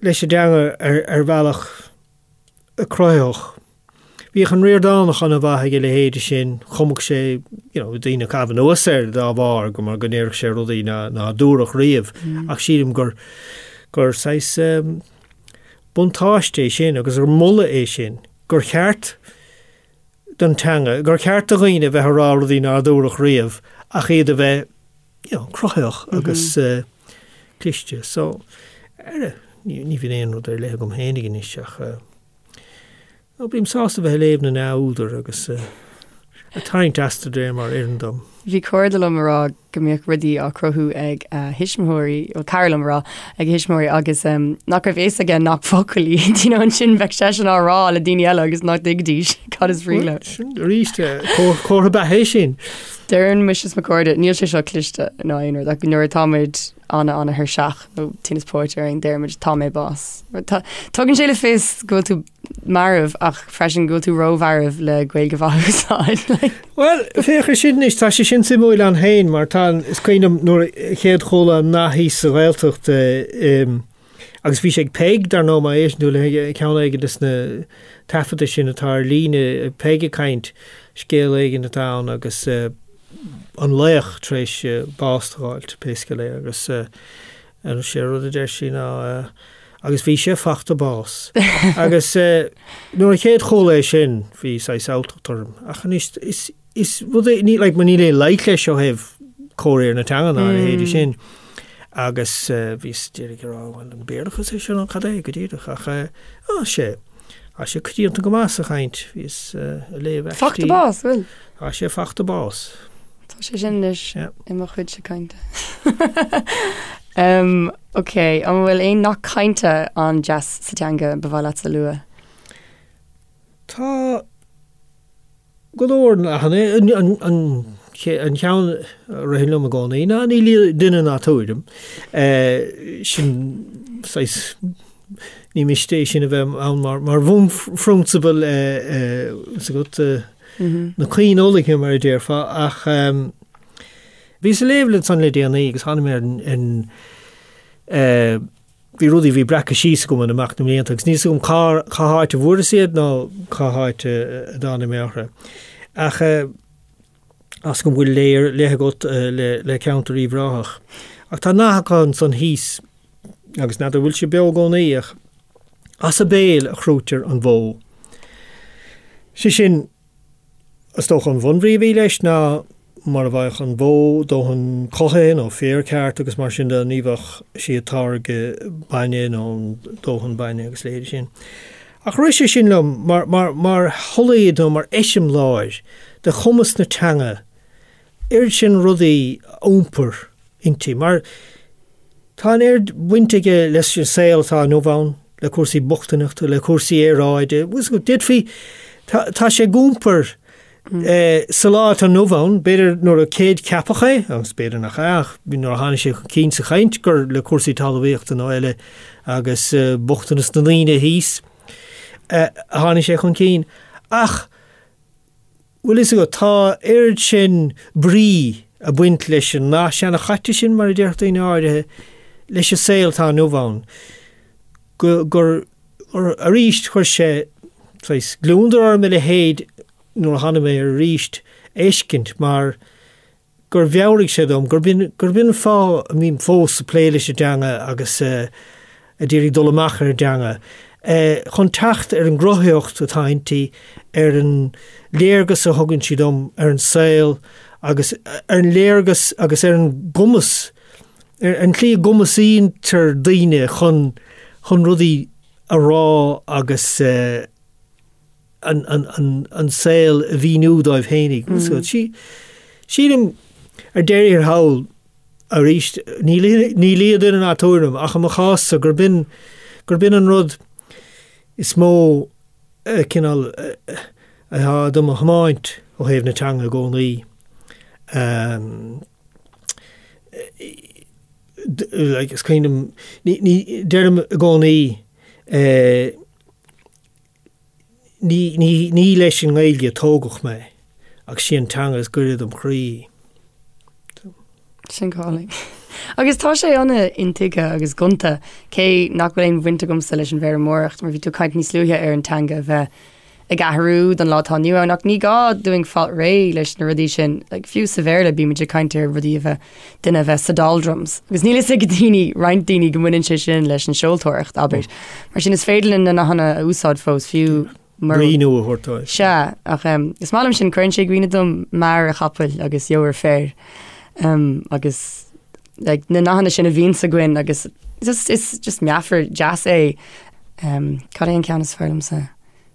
leis an dteanga ar, ar bhealach cruthaitheach, Bhíodh an Ríordánach an-mhaith ag a leithéide sin, chumadh sé, you know, daoine ag caitheamh anuas air dá bharr, go mar go ndéarfadh sé rudaí ná, ná dúradh riamh, ach sílim gur, gur saghas um, buntáiste é sin agus gur moladh é sin, gur cheart don teanga, gur cheart do dhaoine a bheith ag rá rudaí nár dúradh riamh ach iad a bheith, you know, cruthaitheach agus uh, cliste. So, ar, ní, ní bhíonn aon rud ar leith agam féinig anois ach uh, Nó bím sásta bheith ag léamh na n-údar agus ag tarraingt astu de réir mar a oireann dom. Bhí cairde liom a rá go mbíodh rudaí á cruthú ag a thuismitheoirí, bhuel cara liom a rá, ag a thuismitheoirí agus nach raibh fhios aige nach focail iad, you know, ansin bheadh seisean á rá le daoine eile agus nach dtuigfidís cad is brí leo. Sin arís comhartha beatha é sin. Deireann mise is mo chairde, níl sé seo cliste ná aon rud ach nuair atá muid an-an-thuirseach nó tinneas póite orainn, deirimid tá mé bás. Tugann sé le fios go bhfuil tú marbh ach freisin go bhfuil tú rómharbh le Gaeilge mhaith a úsáid. Bhuel, féach ar sin anois, tá sé sin suimiúil ann féin mar tá, is cuimhin liom nuair a chéad chuala an nath thíos sa Ghaeltacht agus bhí sé ag Peig, dar ndóigh, má éisteann tú le ceann éigin de na taifeadta sin atá ar líne, Peig ag caint, scéal éigin atá ann agus an laoch tar éis bás d'fháilt, pé scéal é, agus sé an rud a deir sí ná agus bhí sé fachta bás. Agus nuair a chéad chuala é sin bhí saghas alltacht orm, ach anois is is rud é, ní like, níl aon loic leis ó thaobh comhréir na teanga ná a leithéidí sin. Agus bhíos díreach ag rá, bhuel, an Béarlachas é seo nó cad é go díreach, ach á sé, tá sé coitianta go maith sa chaint, bhíos ag léamh aistí. Fachta bás, bhfuil? Tá sé fachta bás. Tá sé sin anois i mo chuidse cainte. Ok, an bhfuil aon nath cainte an-deas sa teanga ba mhaith leatsa a lua? Tá go leor nathanna. An ceann a ritheann liom i gcónaí ná ní lia duine ná tuairim. Sin saghas, ní miste é sin a bheith ann mar bhunphrionsabal is agat na caoinfhulaingthe mar a déarfá ach bhíos ag léamh ansan le déanaí agus tháinig mé ar an Bhí rudaí a bhí breactha síos agam in imeacht na mblianta agus níl 's agam cá cá háit a bhfuaireas iad ná cá háit a dtáinig mé orthu. Ach tá 's agam go bhfuil lé ar leith agat le le ceantar Uíbh Ráthach. Ach tá nath acu ansan thíos agus n'fheadar bhfuil sé beo i gcónaí ach as a béal a chrúitear an bhó. Sé sin, Is dócha an bhunbhrí a bhí leis ná mura bhfaigheadh an bhó dóthain cothaithe nó féar ceart agus mar sin de ní bheadh sí ag táirgeadh bainne nó dóthain bainne agus a leithéidí sin. Ach rith sé sin liom mar, mar, mar sholaoid nó mar eiseamláir de chumas na teanga oiread sin rudaí a iompar inti, mar tá an oiread baint aige leis an saol atá inniu ann, le cúrsaí bochtaineachta, le cúrsaí aeráide, d'fhéadfaí, tá sé ag iompar sa lá atá inniu ann, b'fhéidir nuair a céadcheapadh é, agus b'fhéidir nach ea, ach nuair a tháinig sé chun cinn sa chaint gur le cúrsaí talmhaíochta nó eile agus bochtanas na ndaoine thíos a tháinig sé chun cinn. Ach Bhfuil fhios agat, tá oiread sin brí ag baint leis an nath seanchaite sin, mar a déarfadh daoine áirithe, leis an saol atá inniu ann, go, gur, arís, chuir sé saghas gliondar orm a leithéid nuair a tháinig mé air arís a fheiscint, mar gur mheabhraigh sé dom gurb in, gurb in an fáth a mbím fós ag plé leis an dteanga agus ag iarraidh dul amach ar an dteanga, chun teacht ar an gcruthaitheacht atá inti, ar an léargas a thugann sí dom ar an saol agus ar an léargas agus ar an gcumas, ar an tslí a gcumasaítear daoine chun, chun rudaí a rá agus. an saol a mhíniú dóibh fhéinig. Sílim, ar deireadh thiar thall, arís, ní lia duine ná tuairim, ach i mo chás-sa, gurb in, gurb in an rud is mó cineál atá do mo thiomáint ó thaobh na teanga i gcónaí. Is cuimhin liom, ní, deirim i gcónaí, Ní, ní, ní leis an nGaeilge a tógadh mé, ach sí an teanga is gaire dom chroí. Sin go hálainn. Agus tá sé an-intuigthe agus gonta, cé nach bhfuil aon bhaint agamsa leis an bhfeirmeoireacht, mar bhí tú ag caint níos luaithe ar an teanga a bheith ag athrú don lá atá inniu ann, ach ní gá dúinn fáil réidh leis na rudaí sin. Like, fiú sa Bhéarla bímid ag caint ar rudaí a bheith, duine a bheith sa doldrums. Agus níl fhios ag daoine, roinnt daoine go mbaineann sé sin leis an seoltóireacht, abair. Mar sin is féidir linn na nathanna a úsáid fós fiú mura. Brí nua a thabhairt dóibh. Sea, ach is maith liom sin, cuireann sé i gcuimhne dom mear an chapaill agus eabhar féir. Agus like, na nathanna sin a bhíonns againn agus just, is just meafar deas é. Cad é an ceann is fearr liomsa?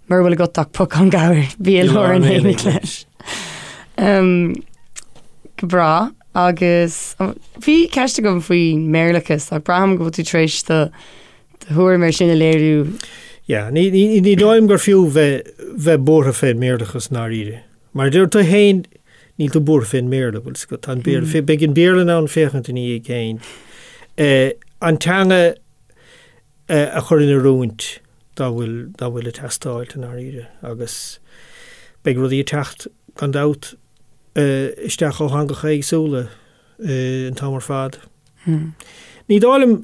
Mura bhfuil agat ach pocán gabhair, bí i lár an aonaigh leis. Go breá agus bhí ceist agam faoin mBéarlachas ach braithim go bhfuil tú tar éis do thuairim ar sin a léiriú. Yeah, ní, ní, ní dóigh liom gur fiú bheith, bheith buartha fén mBéarlachas i ndáiríre. Mar a deir tú féin, níl tú buartha fén mBéarla, bhfuil 's agat, tá an Béarla, beidh an Béarla in ann féachaint ina dhiaidh féin. An teanga a chur in oiriúint dá bhfuil, dá bhfuil ag teastáil i ndáiríre agus beidh rudaí ag teacht gan dabht isteach ó theangacha éagsúla an t-am ar fad. Ní dóigh liom,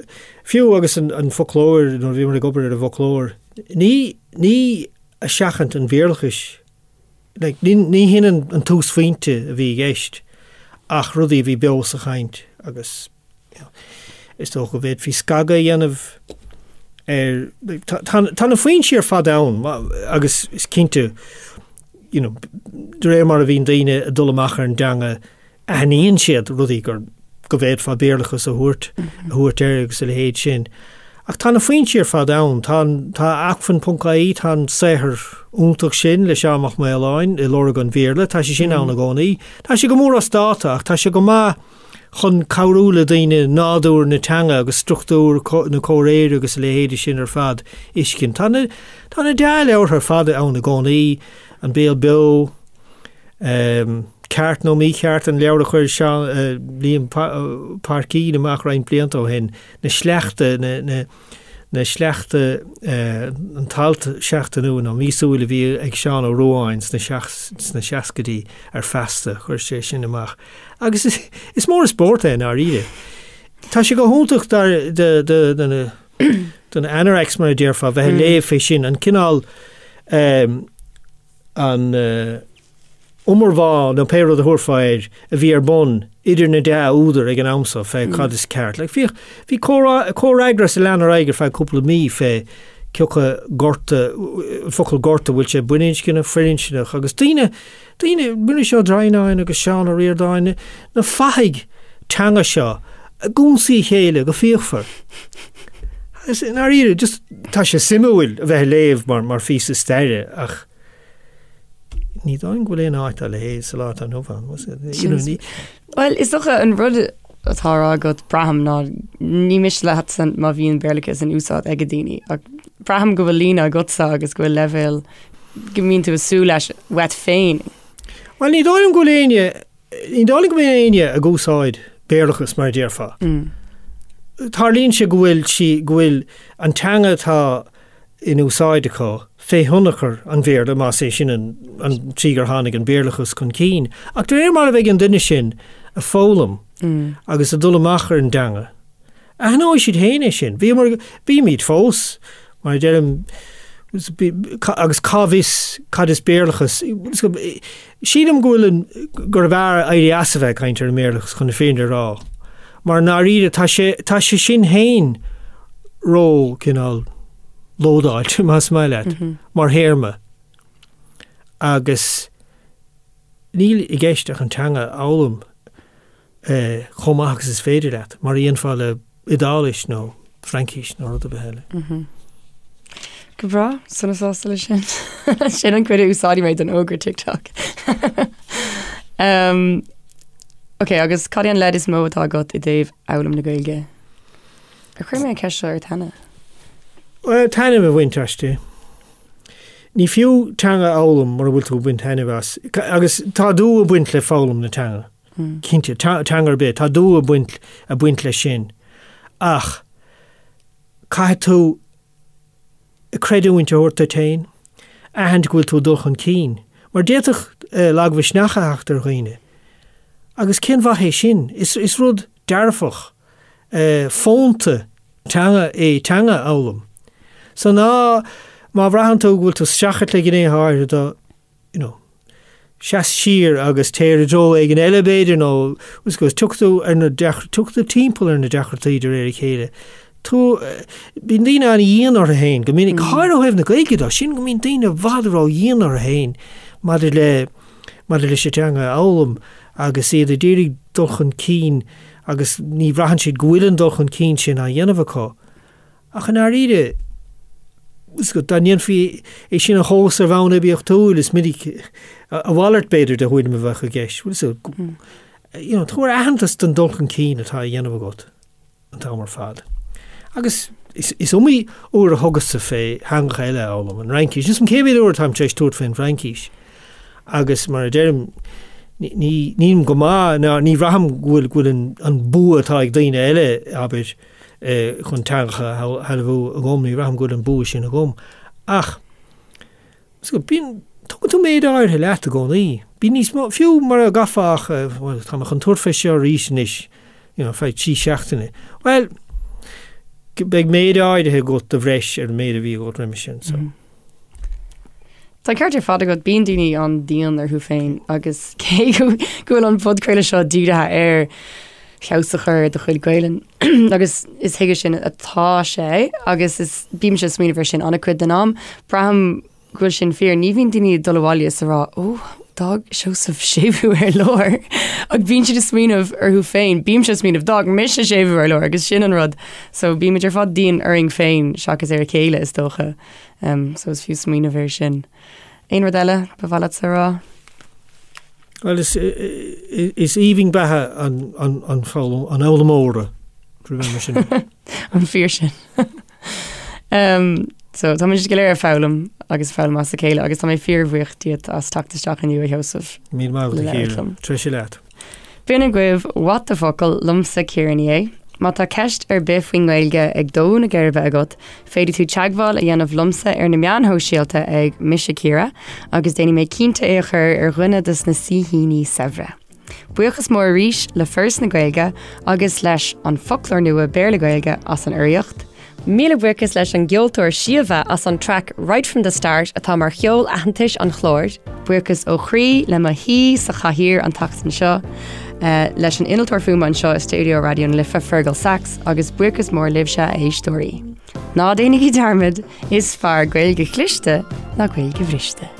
fiú agus an, an foclóir, nuair a bhíomar ag obair ar an bhfoclóir, ní, ní ag seachaint an Bhéarlachais, like, ní, ní hin an, an túsphointe a bhí i gceist ach rudaí a bhí beo sa chaint agus Is dócha go bhféadfaí scagadh a dhéanamh ar, tá na foinsí ar fad ann agus is cinnte, you know, de réir mar a bhíonn daoine ag dul amach ar an dteanga, aithníonn siad rudaí gur, go bhféadfá Béarlachas a thabhairt, a thabhairt air agus a leithéid sin. Ach tá na foinsí ar fad ann. Tá an, tá acmhainn ponc ie, tá an saothar iontach sin le Seán Mac Maoláin i Lorg an Bhéarla, tá sé sin ann i gcónaí. Tá sé go mór as dáta ach tá sé go maith chun cabhrú le daoine nádúr na teanga agus struchtúr na comhréire agus a leithéide sin ar fad a fheiscint. Tá na, tá na dea-leabhartha ar fad ann i gcónaí, An Béal Beo, Ceart nó Mícheart, an leabhar a chuir Seán, Liam Paircín amach roinnt blianta ó shin, na sleachta, na, na, na sleachta, an t-alt seachtainiúil nó míosúil a bhí ag Seán Ó Ruadháin sna, sna seascaidí ar Feasta, chuir sé sin amach. Agus is, is mór an spórt é i ndáiríre. Tá sé go hiontach dar, do, do, do na, do na anoraks mar a déarfá, bheith ag léamh fé sin, an cineál, an iomarbhá nó pé rud a thabharfá air a bhí ar bun idir na dea-údair ag an am so fé cad is ceart. Like, bhíodh, bhí comhfhreagras a lean ar aghaidh ar feadh cúpla mí fé cé acu gorta, an focal gorta, bhfuil sé baininscneach, firinscneach agus daoine, daoine, Muiris Ó Droighneáin agus Seán Ó Ríordáin, na fathaigh teanga seo ag ionsaí a chéile go fíochmhar. Agus i ndáiríre, just tá sé suimiúil a bheith ag léamh mar, mar phíosa staire ach ní dóigh liom go bhfuil aon áit dá leithéid sa lá atá inniu ann. You know, ní, Bhuel, is dócha an rud atá á rá agat, braithim, ná ní miste leatsa má bhíonn Béarlachas in úsáid ag daoine, ach braithim go bhfuil líne agatsa agus go bhfuil leibhéal go mbíonn tú ag súil leis uait féin. Bhuel, ní dóigh liom go bhfuil éinne, ní dóigh liom go mbíonn éinne ag úsáid Béarlachas mar a déarfá. Tarlaíonn sé go bhfuil sí, go bhfuil an teanga atá in úsáid acu fé thionchar an Bhéarla, más é sin an, an tslí gur tháinig an Béarlachas chun cinn. Ach de réir mar a bheidh an duine sin ag foghlaim agus ag dul amach ar an dteanga, Aithneoidh siad féin é sin. Bhíomar, bímid fós, mar a deirim, agus cá bhfios cad is Béarlachas. Sílim go bhfuil an, gurbh fhearr éirí as a bheith ag caint ar an mBéarlachas chun na fírinne a rá. Mar i ndáiríre tá sé, tá sé sin féin ró, cineál, lódáilte, más maith leat, mar théarma. Agus níl i gceist ach an teanga a fhoghlaim. chomh maith agus is féidir leat, mar a dhéanfá le Iodáilis nó Fraincis nó rud ar bith eile. Go breá, sona sásta leis sin. Sin an cuid a úsáidfidh mé don fhógra TikTok. um, ok, agus cad é an leid is mó atá agat i dtaobh fhoghlaim na Gaeilge? Ar chuir mé an ceist seo ort cheana? Well, taitneamh a bhaint aisti. Ní fiú teanga a fhoghlaim mura bhfuil tú ag baint taitneamh as. Agus tá dua ag baint le foghlaim na teanga. Cinnte, teanga ar bith, tá dua ag baint, ag baint leis sin. Ach caithfidh tú creidiúint a thabhairt duit féin, aithint go bhfuil tú ag dul chun cinn. Mar d'fhéadfadh lagmhisneach a theacht ar dhaoine. Agus cén mhaith é sin? Is, is rud dearfach, fónta teanga é teanga a fhoghlaim. So ná, má bhraitheann tú go bhfuil tú ag streachailt le gnéithe áirithe de, you know, seas siar agus téir i dtreo éigin eile b'fhéidir nó agus tiocfaidh tú ar na tiocfaidh tú timpeall ar na deacrachtaí de réir a chéile. Tú, bíonn daoine an-dhian orthu féin go minic, go háirithe ó thaobh na Gaeilge de, sin go mbíonn daoine i bhfad ró-dhian orthu féin maidir le maidir leis an teanga a fhoghlaim agus iad ag iarraidh dul chun cinn agus ní bhraitheann siad go bhfuil an dul chun cinn sin á dhéanamh acu. Ach i ndáiríre, dá ndéanfaí é sin a thomhas ar bhonn oibiachtúil, is minic a mhalairt, b'fhéidir, de thuairim a bheadh i gceist. Bhuel, so, you know, tabhair aitheantas don dul chun cinn atá á dhéanamh agat an t-am ar fad. Agus is, is iomaí uair a thugas-sa fé theangacha eile a fhoghlaim, an Fhraincis. Níl 's a'm cé mhéad uair atáim tar éis tabhairt fén bhFraincis. Agus mar a deirim, ní, nílim go maith, ná ní bhraithim go bhfuil, go bhfuil an, an bua atá ag daoine eile, abair, chun teangacha a shealbhú agam, ní bhraithim go bhfuil an bua sin agam. Ach bíonn, tugann tú méid áirithe leat i gcónaí. Bíonn níos mó, fiú mura gcaithfeá ach, bhuel, tá mé chun tabhairt fé seo arís anois, you know, feadh 3 seachtaine. Bhuel, beidh méid áirithe agat de bhreis ar an méid a bhí agat roimhe sin, so. Tá an ceart ar fad agat, bíonn daoine an-dian orthu féin agus cé go bhfuil an podchraoladh seo dírithe ar feabhas a chur ar do chuid Gaelainn agus is chuige sin atá sé agus is bímse ag smaoineamh ar sin an-chuid den am, braithim go bhfuil sin fíor. Ní bhíonn daoine ag dul abhaile is a rá, ó! D'fhág Seosamh séimhiú ar lár ach bíonn siad ag smaoineamh orthu féin, bímse ag smaoineamh d'fhág mise séimhiú ar lár agus sin an rud. So bímid ar fad dian orainn féin seachas ar a chéile is dócha. Um, so is fiú smaoineamh air sin. Aon rud eile ba mhaith leatsa a rá? Well is, is aoibhinn beatha an, an, an, foghlaim, an fhoghlaimeora, mar sin. An fíor sin. Um, so tá muid go léir ag foghlaim agus foghlaim as a chéile agus tá mé fíorbhuíoch díot as teacht isteach inniu a Sheosaimh. Míle maith agat a Chiara. Treise leat. B'in agaibh What the Focal liomsa Ciara Ní É. Má tá ceist ar bith faoin nGaeilge ag dó na geirbe agat, féadfaidh tú teagmháil a dhéanamh liomsa ar na meáin shóisialta ag Mise Ciara agus déanfaidh mé cinnte é a chur ar dhuine de na saoithíní saibhre. Buíochas mór arís le Foras na Gaeilge agus leis An Foclóir Nua Béarla-Gaeilge as an urraíocht. Míle buíochas leis an gceoltóir Síomha as an traic Right From The Start atá mar cheol aitheantais an chláir. Buíochas ó chroí le mo shaoi sa chathaoir an tseachtain seo, leis an innealtóir fuaime anseo i stiúideo Raidió na Life, Fergal Sachs, agus buíochas mór libhse, a éisteoirí. Ná déanaigí dearmad, is fearr Gaeilge chliste ná Gaeilge bhriste.